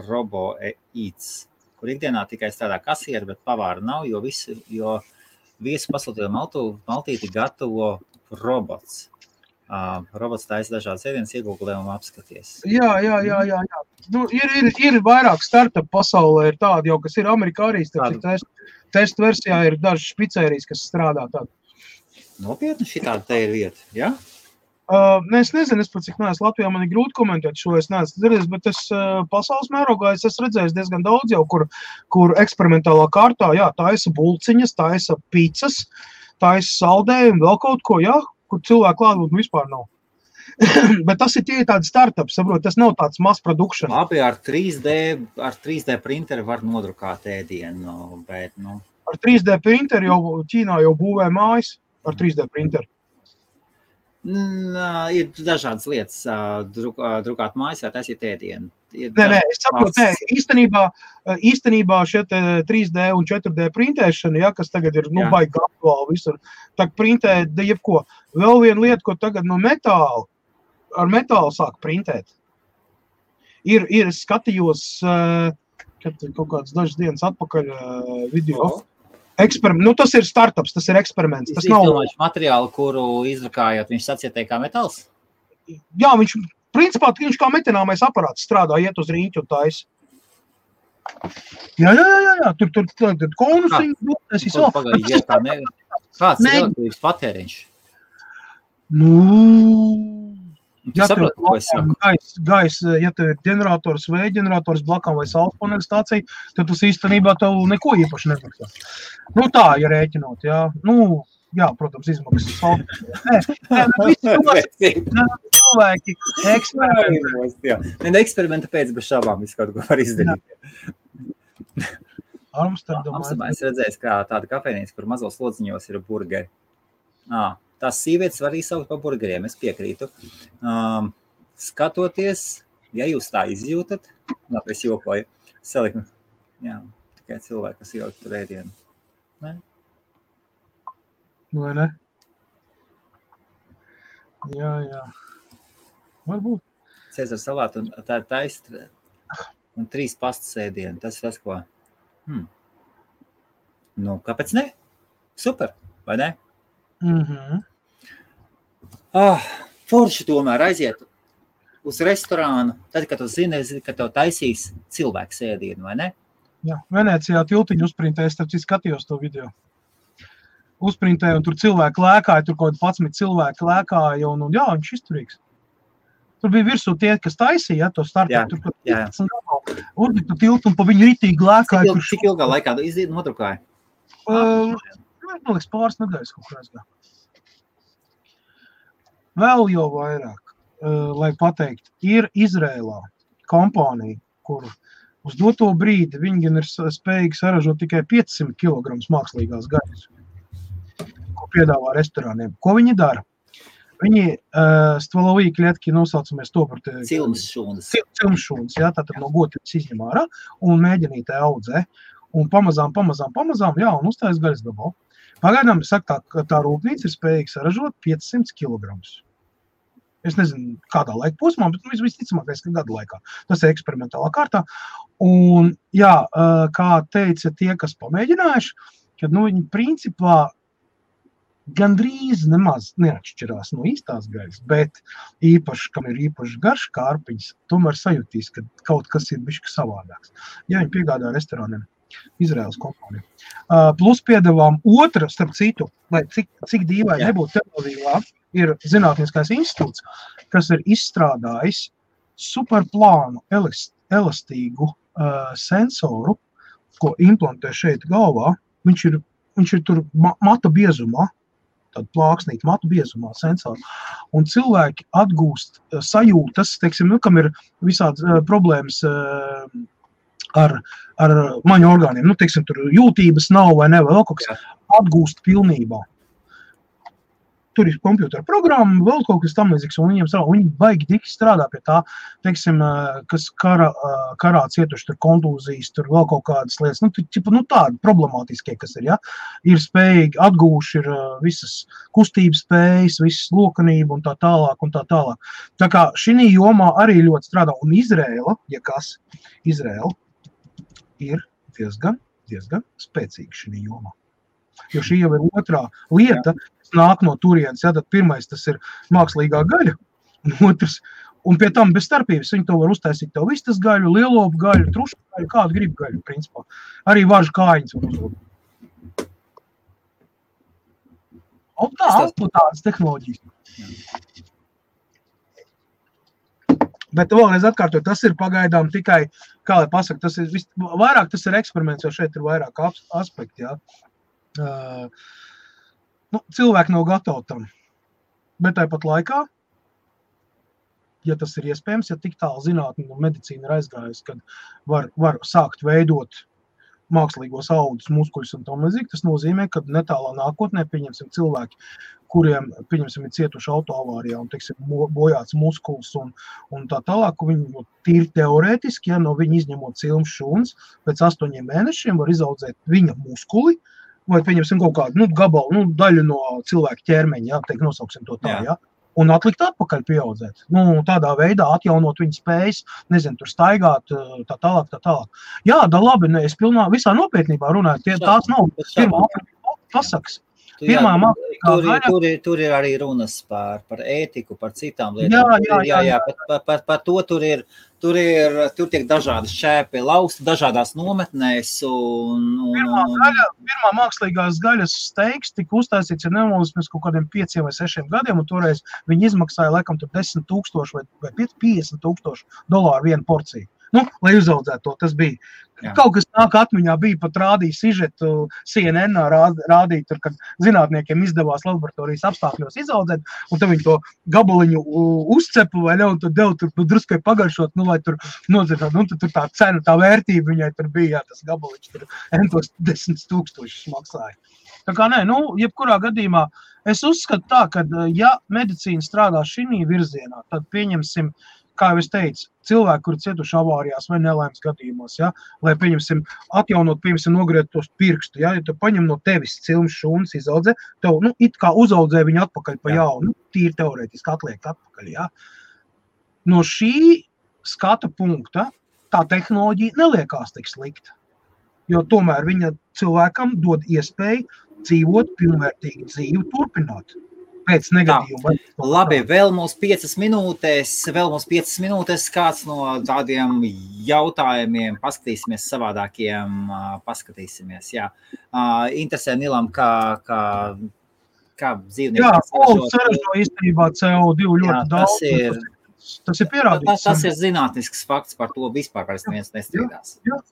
Robo Eats, kur ikdienā tikai strādā kasieri, bet pavāra nav, jo viesu pasūtījumu maltīti gatavo robots. Robots taisa dažādas ēdienas, iegūglē un apskaties. Jā. Ir vairāk startup pasaulē, ir tādi jau, kas ir Amerikā arī, testu versijā ir dažas špicērijas, kas strādā tādu. Nopietni šitāda te ir vieta, ja? Es nezinu, es pat cik neesmu Latvijā, man ir grūti komentēt šo, es neesmu dzirdējis, bet es pasaules mērogā es esmu redzējis diezgan daudz jau, kur eksperimentālā kārtā, jā, taisa bulciņas, taisa pizzas, taisa saldējumu, vēl kaut ko, jā, kur cilvēku klātbūtne vispār nav. Bet tas ir tie tādi startups, saprot, tas nav tāds mass production. Labi, ar 3D printeri var nodrukāt ēdienu, bet, Ar 3D printeri jau Ķīnā jau būvē mājas ar 3D printeri. Ir dažādas lietas, drukāt mājas vai taisīt ēdienu. Nē, es saprotu, īstenībā šie 3D un 4D printēšana, ja, kas tagad ir, baigi aktuāli visur, tak printē jebko. Vēl viena lieta, ko tagad ar metālu sāk printēt. Ir skatījos, kad kaut kāds dažas dienas atpakaļ video. Tas ir startups, tas ir eksperiments. Tas nav materiālu, kuru izdrukājot, viņš sacietēja kā metāls? Jā, principā viņš kā metināmais aparāts strādā, iet uz rīķu un taisa. Jā, tur konusiņu. Kāds ir elektrības patēriņš? Ja tev gais, ja tev ir ģenerators, vēja ģenerators blakām vai saules paneļa stācija, tad tas īstenībā tev neko īpaši nemaksā. Tā, ja rēķinot, jā. Jā, protams, izmaksas. Visi cilvēki eksperimenta pēc bez šābām visu kaut ko var izdarīt. Amsterdamā es redzēju, kā tāda kafejnīca, kur mazos lodziņos ir burgeri. Tās sievietes var izsaukt par burgeriem, es piekrītu. Skatoties, ja jūs tā izjūtat, es jokoju, saliku, tikai cilvēki, kas ielikt tur ēdienu. Ne? Vai ne? Jā. Varbūt. Cēzara salātu un tā ir taist un 3 pastas ēdienu. Tas ir tas, ko... kāpēc ne? Super, vai ne? Forši tomēr aiziet uz restorānu, tad, kad tu zini, ka tev taisīs cilvēks ēdienu, vai ne? Jā, Venecijā tiltiņu uzprintēju, starp citu skatījos to video. Uzprintēju, un tur cilvēki lēkāja, tur kaut 11 cilvēki lēkāja, un jā, viņš izturīgs. Tur bija virsū tie, kas taisīja, to startu, tur 15 galu. Uzliktu tiltu un pa viņu ritīgi lēkāja. Cik ilgā laikā nodrukāja? Man liekas, pāris nedēļas kaut kā aizgā. Vēl jau vairāk, lai pateikt, ir Izrēlā kompānija, kur uz doto brīdi viņi gan ir spējīgi saražot tikai 500 kg mākslīgās gaļas, ko piedāvā restorāniem. Ko viņi dara? Viņi stvalovī klietki nosaucamies to par cilmšūnas, jā, tātad no gotības izņem ārā un mēģinītē audzē. Un pamazām, jā, un uztājas gaļas gabalu. Pagaidām, saka, tā rūpnīca ir spējīga saražot 500 kg. Es nezinu, kādā laika posmā, bet visticamākais, ka gada laikā. Tas ir eksperimentālā kārtā. Un, jā, kā teica tie, kas pamēģinājuši, kad, viņi principā gandrīz nemaz neatšķirās no īstās gaļas, bet īpaši, kam ir īpaši garš kārpiņas, tomēr sajūtīs, ka kaut kas ir bišķi savādāks. Ja viņi piegādā restorāniem. Izraēlas kompānija. Plus piedevām otra, starp citu, lai cik dīvaini nebūtu Tel-Avīvā, ir zinātniskais institūts, kas ir izstrādājis superplānu elastīgu sensoru, ko implantē šeit galvā. Viņš ir tur mata biezumā, tāda plāksnīta matu biezumā sensori. Un cilvēki atgūst sajūtas, teiksim, kam ir visādas problēmas ar maņu orgāniem. Teiksim, tur jūtības nav vai ne, vēl kaut kas atgūst pilnībā. Tur ir kompjutera programma, vēl kaut kas tam līdzīgs, un viņi baigi tik strādā pie tā, teiksim, kas karā cietuši, tur kontūzijas, tur vēl kaut kādas lietas, tādi problemātiskie, kas ir, ja, ir spējīgi, atgūši ir visas kustības spējas, visas lokanība un tā tālāk un tā tālāk. Tā kā šī jomā arī ļoti strādā, un Izrēla, Izrēla ir diezgan spēcīga šī jomā. Jo šī jau ir otrā lieta, kas nāk no turienes. Ja, tad pirmais tas ir mākslīgā gaļa, un otrs, un pie tam bez starpības viņi to var uztaisīt tev vistas gaļu, lielopu gaļu, trušu gaļu, kādu grib gaļu, principā. Arī varžu kājiņas var uzlūt. Un tādas tehnoloģijas. Bet vēlreiz atkārtot, tas ir pagaidām tikai, kā lai pasaka, vairāk tas ir eksperiments, jo šeit ir vairāk aspekti, jā. Cilvēki nav gatavi tam. Bet tāpat laikā, ja tas ir iespējams, ja tik tālu zinātne un medicīna ir aizgājusi, kad var sākt veidot mākslīgos audus, muskuļus un tam līdzīgi, tas nozīmē, ka netālā nākotnē, pieņemsim, cilvēki, kuriem, pieņemsim, ir cietuši autoavārijā un, teiksim, bojāts muskuls un tā tālāk, viņi tīri teorētiski, ja no viņa izņemot cilmes šūnas, pēc 8 mēnešiem var izaudzēt viņa muskuli, vai, pieņemsim, kaut kādu gabalu, daļu no cilvēka ķermeņa, teikt, nosauksim to tā, ja? Un atlikt atpakaļ pieaudzēt. Tādā veidā atjaunot viņa spējas, nezinu, tur staigāt, tā tālāk. Jā, da labi, es visā nopietnībā runāju, tās nav pirmā pasakas. Tur ir arī runas par ētiku, par citām lietām. Jā, par to tur tiek dažādas šķēpi lausti, dažādās nometnēs. Pirmā mākslīgās gaļas steiks tika uztaisīts, ja nemaldos, mēs kaut kādiem 5 vai 6 gadiem, un toreiz viņi izmaksāja laikam tur $10,000 vai $50,000 vienu porciju. Lai uzaudzētu to, tas bija. Jā. Kaut kas nāk atmiņā bija, pat rādīja sižetu CNN rādīja tur, kad zinātniekiem izdevās laboratorijas apstākļos izaudzēt, un tad viņi to gabaliņu uzcepa vai ne, un tad devu tur druskai pagaršot, lai tur nodzirtāt, un tur tā cena, tā vērtība viņai tur bija, jā, tas gabaliņš tur entos 10,000 maksāja. Tā kā nē, jebkurā gadījumā es uzskatu tā, ka ja medicīna strādā šī virzienā, tad pieņemsim, kā jau es teicu, cilvēki, kuri cietuši avārijās vai nelaimes gadījumos, ja, lai, pieņemsim, atjaunot, nogriezt tos pirkstu, ja tu paņem no tevis cilmes šūnas izaudzē, tev, it kā uzaudzē viņu atpakaļ pa jaunu, tīri teorētiski atliek atpakaļ, ja. No šī skata punkta tā tehnoloģija neliekās tik slikta, jo tomēr viņa cilvēkam dod iespēju dzīvot pilnvērtīgu dzīvi, turpināt. Pēc negadījuma. Labi, vēl mums 5 minūtes, kāds no tādiem jautājumiem paskatīsimies savādākiem, jā. Interesē Nilam, kā dzīvnieki. Jā, saražo īstenībā CO2 ļoti daudz. Tas ir pierādīts. Tas ir zinātnisks fakts, par to vispār neviens nestrīdās. Jā.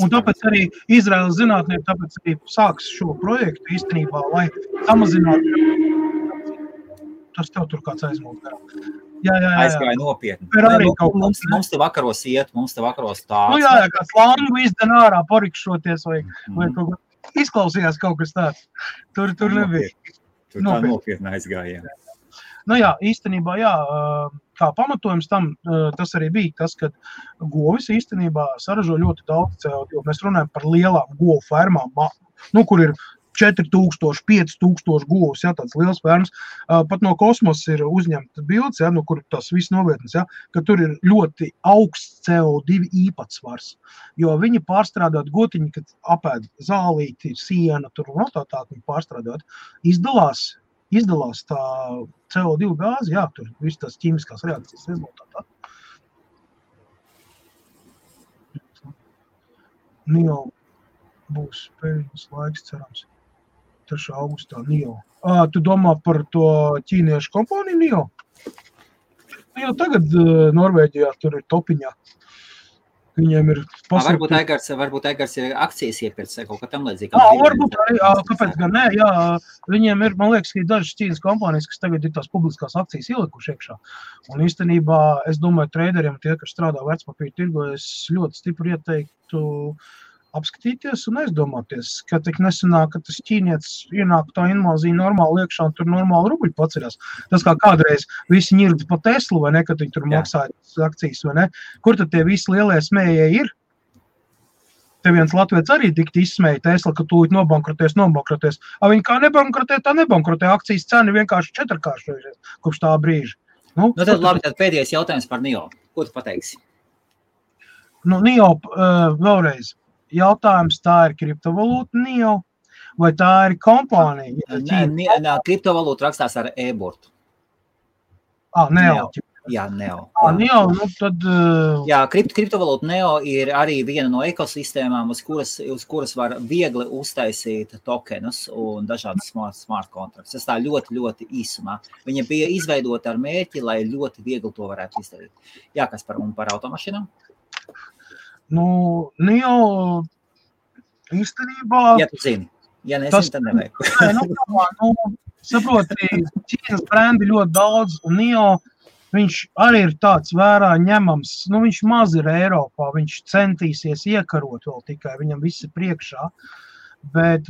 Un tāpēc arī Izraēlas zinātnieki tāpēc arī sāks šo projektu īstenībā, lai samazinātu. Tas tev tur kāds aizmūst garām. Jā. Aizgāja nopietni. Mums te vakaros iet, mums te vakaros tāds. Jā, kāds langu izden ārā parikšoties vai kaut ko. Izklausījās kaut kas tāds. Tur nebija. Tur tā nopietni aizgāja. Jā, īstenībā, kā pamatojums tam, tas arī bija tas, ka govis īstenībā saražo ļoti daudz CO2. Mēs runājam par lielām govu fermām, kur ir 4,000, 5,000 govs, tāds liels fermas. Pat no kosmosa ir uzņemta bildes, kur tas viss novietnes, ka tur ir ļoti augsts CO2 īpatsvars, jo viņi pārstrādāt gotiņi, kad apēd zālīti, siena, tur un tā viņi pārstrādāt, izdalās tā CO2 gāzi, tur viss tās ķīmiskās reakcijas rezultātā. Jau būs pēļņas laiks, cerams. 3. augustā NIO. Tu domā par to ķīniešu kompāniju NIO? Jau tagad Norvēģijā tur ir topiņā. Viņiem ir Varbūt Egars ir akcijas iepirts vai kaut kā tam līdzīga. Varbūt arī, kāpēc gan nē, viņiem ir, man liekas, ka ir dažas ķīnas kompānijas, kas tagad ir tās publiskās akcijas ielikuši iekšā. Un īstenībā, es domāju, trēderiem, tie, kas strādā vērtspapīra tirgo, es ļoti stipri ieteiktu apskatīties un aizdomāties, ka tik nesanāk, ka tas ķīnietis ienāk tā invāzija normāli iekšā un tur normāli rubļi paceļās. Tas kā kādreiz visi ņirdi pa Teslu, vai ne, kad viņi tur maksāja akcijas, vai ne? Kur tad tie visi lielie smējēji ir? Te viens latviets arī tikt izsmēja Tesla, ka tūlīt nobankrotēs. Viņi kā nebankrotē, tā nebankrotē. Akcijas cena vienkārši 4-kāršojušies kopš tā brīža. Tad labi, tad pēdējais jautājums par NIO. Ko tu pateiksi? NIO vēlreiz. Jautājums, tā ir kriptovalūta NIO, vai tā ir kompānija? Kriptovalūta rakstās ar e-burtu. NEO. Jā, Neo. Neo, nu tad... Jā, kriptovalūta Neo ir arī viena no ekosistēmām, uz kuras var viegli uztaisīt tokenus un dažādas smart kontraktus. Tas tā ļoti, ļoti īsumā. Viņa bija izveidota ar mērķi, lai ļoti viegli to varētu izdarīt. Jā, kas par automašīnām? Nu, Neo īstenībā... Ja tu zini. Ja nezinu, tad nevajag. Saproti, Ķīnas brendi ļoti daudz, un Neo, viņš arī ir tāds vērā ņemams. Nu, viņš maz ir Eiropā, viņš centīsies iekarot vēl tikai, viņam viss ir priekšā. Bet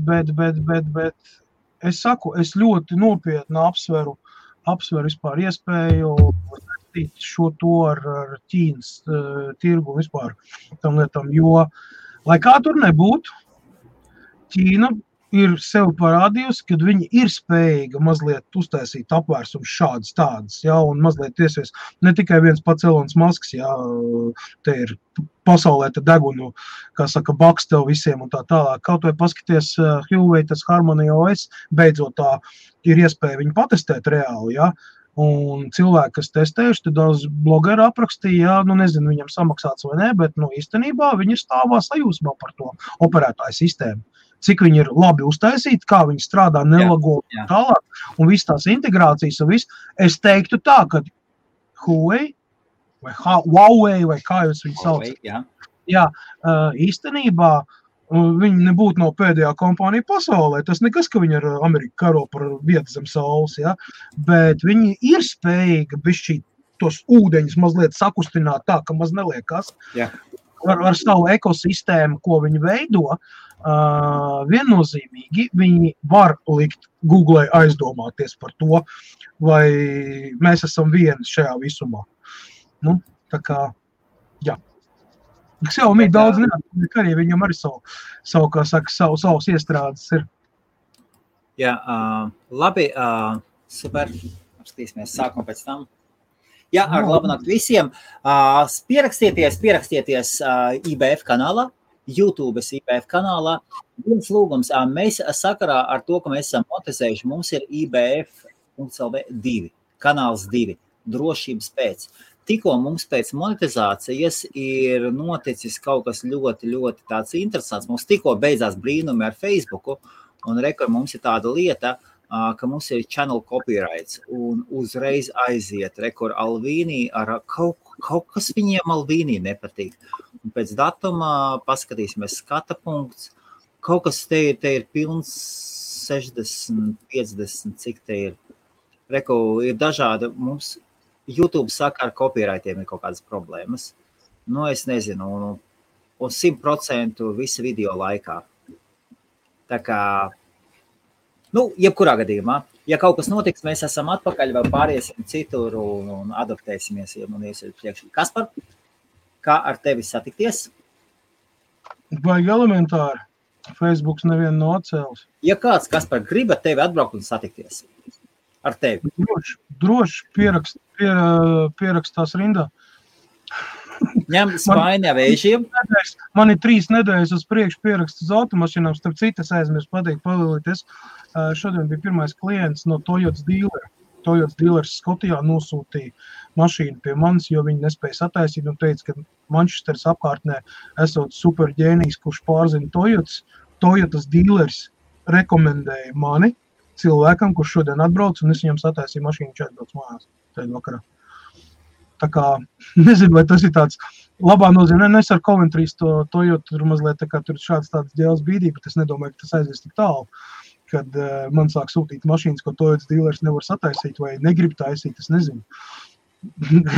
es saku, es ļoti nopietni apsveru vispār iespēju šo to ar Ķīnas tirgu vispār tam lietam, jo, lai kā tur nebūtu, Ķīna ir sev parādījusi, kad viņi ir spējīga mazliet uztaisīt apvērsums šādas tādas, ja, un mazliet tiesies ne tikai viens pats Elonas Masks, ja, te ir pasaulē te degunu, kā saka, baks tev visiem un tā tālāk. Kaut vai paskaties Huawei, tas Harmony OS, beidzot tā ir iespēja viņu patestēt reāli, ja, un cilvēki, kas testējuši, tad daudz blogeri aprakstīja, ja, nu nezinu, viņam samaksāts vai ne, bet, nu, īstenībā viņi ir stāvā sajūsmā par to operētāju sistēmu. Cik viņi ir labi uztaisīti, kā viņi strādā, nelago un tālāk, un viss tās integrācijas un viss. Es teiktu tā, ka Huawei vai kā jūs viņu sauc. Jā, īstenībā viņi nebūtu no pēdējā kompānija pasaulē. Tas nekas, ka viņi ar Ameriku karo par vietu zem saules, ja? Bet viņi ir spējīgi bišķīt tos ūdeņus mazliet sakustināt tā, ka maz neliekas. Ar savu ekosistēmu, ko viņi veido, viennozīmīgi viņi var likt Google aizdomāties par to, vai mēs esam vieni šajā visumā. Nu, tā kā, jā. Xiaomi daudz neatliek arī, viņam arī savu, kā saka, savus iestrādes ir. Jā, labi, super, apskatīsimies sākumu pēc tam. Jā, ar labnakt visiem. Pierakstieties IBF kanālā. YouTube's IBF kanālā. Viens lūgums, mēs sakarā ar to, ka mēs esam monetizējuši, mums ir IBF.lv 2, kanāls 2, drošības pēc. Tikko mums pēc monetizācijas ir noticis kaut kas ļoti, ļoti tāds interesants. Mums tikko beidzās brīnumi ar Facebooku, un mums ir tāda lieta, ka mums ir channel copyrights, un uzreiz aiziet Alvīnī ar kaut kas viņiem Alvīnī nepatīk. Un pēc datuma paskatīsimies skata punkts. Kaut kas te ir pilns 60, 50, cik te ir. Ir dažādi, mums YouTube saka, ar copyrightiem ir kaut kādas problēmas. Nu, es nezinu, un 100% visa video laikā. Tā kā, jebkurā gadījumā, ja kaut kas notiks, mēs esam atpakaļ, vai pāriesim citur un adaptēsimies, un iesiet priekš. Kaspar, kā ar tevi satikties? Vajag elementāri. Facebooks nevienu no atcēlus. Ja kāds, Kaspar, grib ar tevi atbraukt un satikties? Ar tevi? Droši pierakstās rindā. Ņem Spaini vēžiem. Man ir 3 nedēļas uz priekšu pieraksts uz automašīnām, starp citas aizmirst pateikt palīties. Šodien bija pirmais klients no Toyotas dealera. Toyotas dealers Skotijā nosūtīja mašīnu pie manis, jo viņi nespēja sataisīt un teica, ka Manchesteras apkārtnē esot super ģēnijs, kurš pārzina Toyotas. Toyotas dealers rekomendēja mani cilvēkam, kurš šodien atbrauc, un es viņam sataisīju mašīnu 4 brauc mājās tajā vakarā. Tā kā, nezinu, vai tas ir tāds labā nozīmē. Es ar Coventrys to Toyota tur mazliet tā kā tur šāds tāds ģēles bīdī, bet es nedomāju, ka tas aizies tik tālu, kad man sāk sūtīt mašīnas, ko Toyotas dealers nevar sataisīt vai negrib taisīt, es nezinu.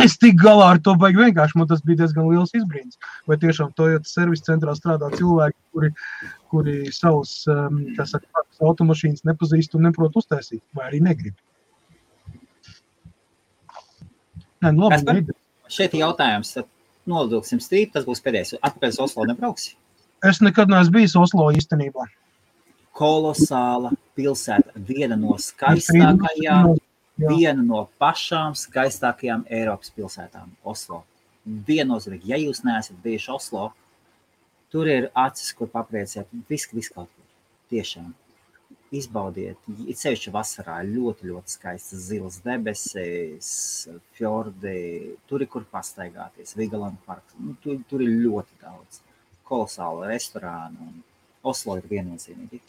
Es tik galā ar to baigi vienkārši, man tas bija diezgan liels izbrīns. Vai tiešām Toyotas servisa centrā strādā cilvēki, kuri savus, kā saka, automašīnas nepazīst un neprot uztaisīt, vai arī negrib. Šeit jautājums, tad nolidoksim strīt, tas būs pēdējais. Atpēc Oslo nebrauksi? Es nekad neesmu bijis Oslo īstenībā. Kolosāla pilsēta, viena no skaistākajām, viena no pašām skaistākajām Eiropas pilsētām, Oslo. Viennozīmīgi, ja jūs neesat bijuši Oslo, tur ir acis, kur papriecēt, viss kaut kur, tiešām. izbaudiet, it sevišķi vasarā, ļoti, ļoti skaistas zilas debesis, fjordi, tur ir kur pastaigāties, Vigeland parks, tur ir ļoti daudz kolosālu restorānu, un Oslo ir viennozīmīgi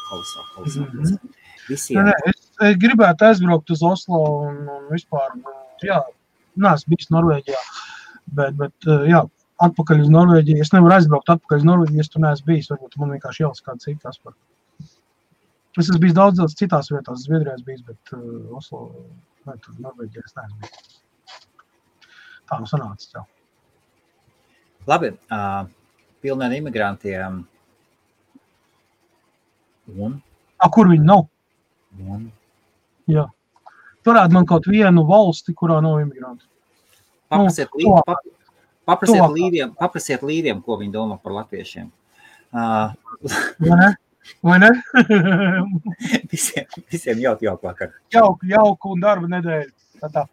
kolosāli. Visiem. Es gribētu aizbraukt uz Oslo un vispār, jā, neesmu bijis Norvēģijā, bet jā, atpakaļ uz Norvēģiju, es nevaru aizbraukt atpakaļ uz Norvēģiju, es tur neesmu bijis, varbūt man vienkārši jālas kāda cita aspar. Es esmu bijis daudz citās vietās, Zviedrijā es bijis, bet Oslo, vai tur Norvēģijā es neesmu bijis. Tā nu sanācis, jā. Labi, pilniem imigrantiem. Un? Kur viņi nav? Un? Jā. Turētu man kaut vienu valsti, kurā nav imigranti. Paprasiet līdiem, ko viņi domā par latviešiem. Vai ne? Visiem jauku vakaru. Jauku un darba nedēļu. Tā.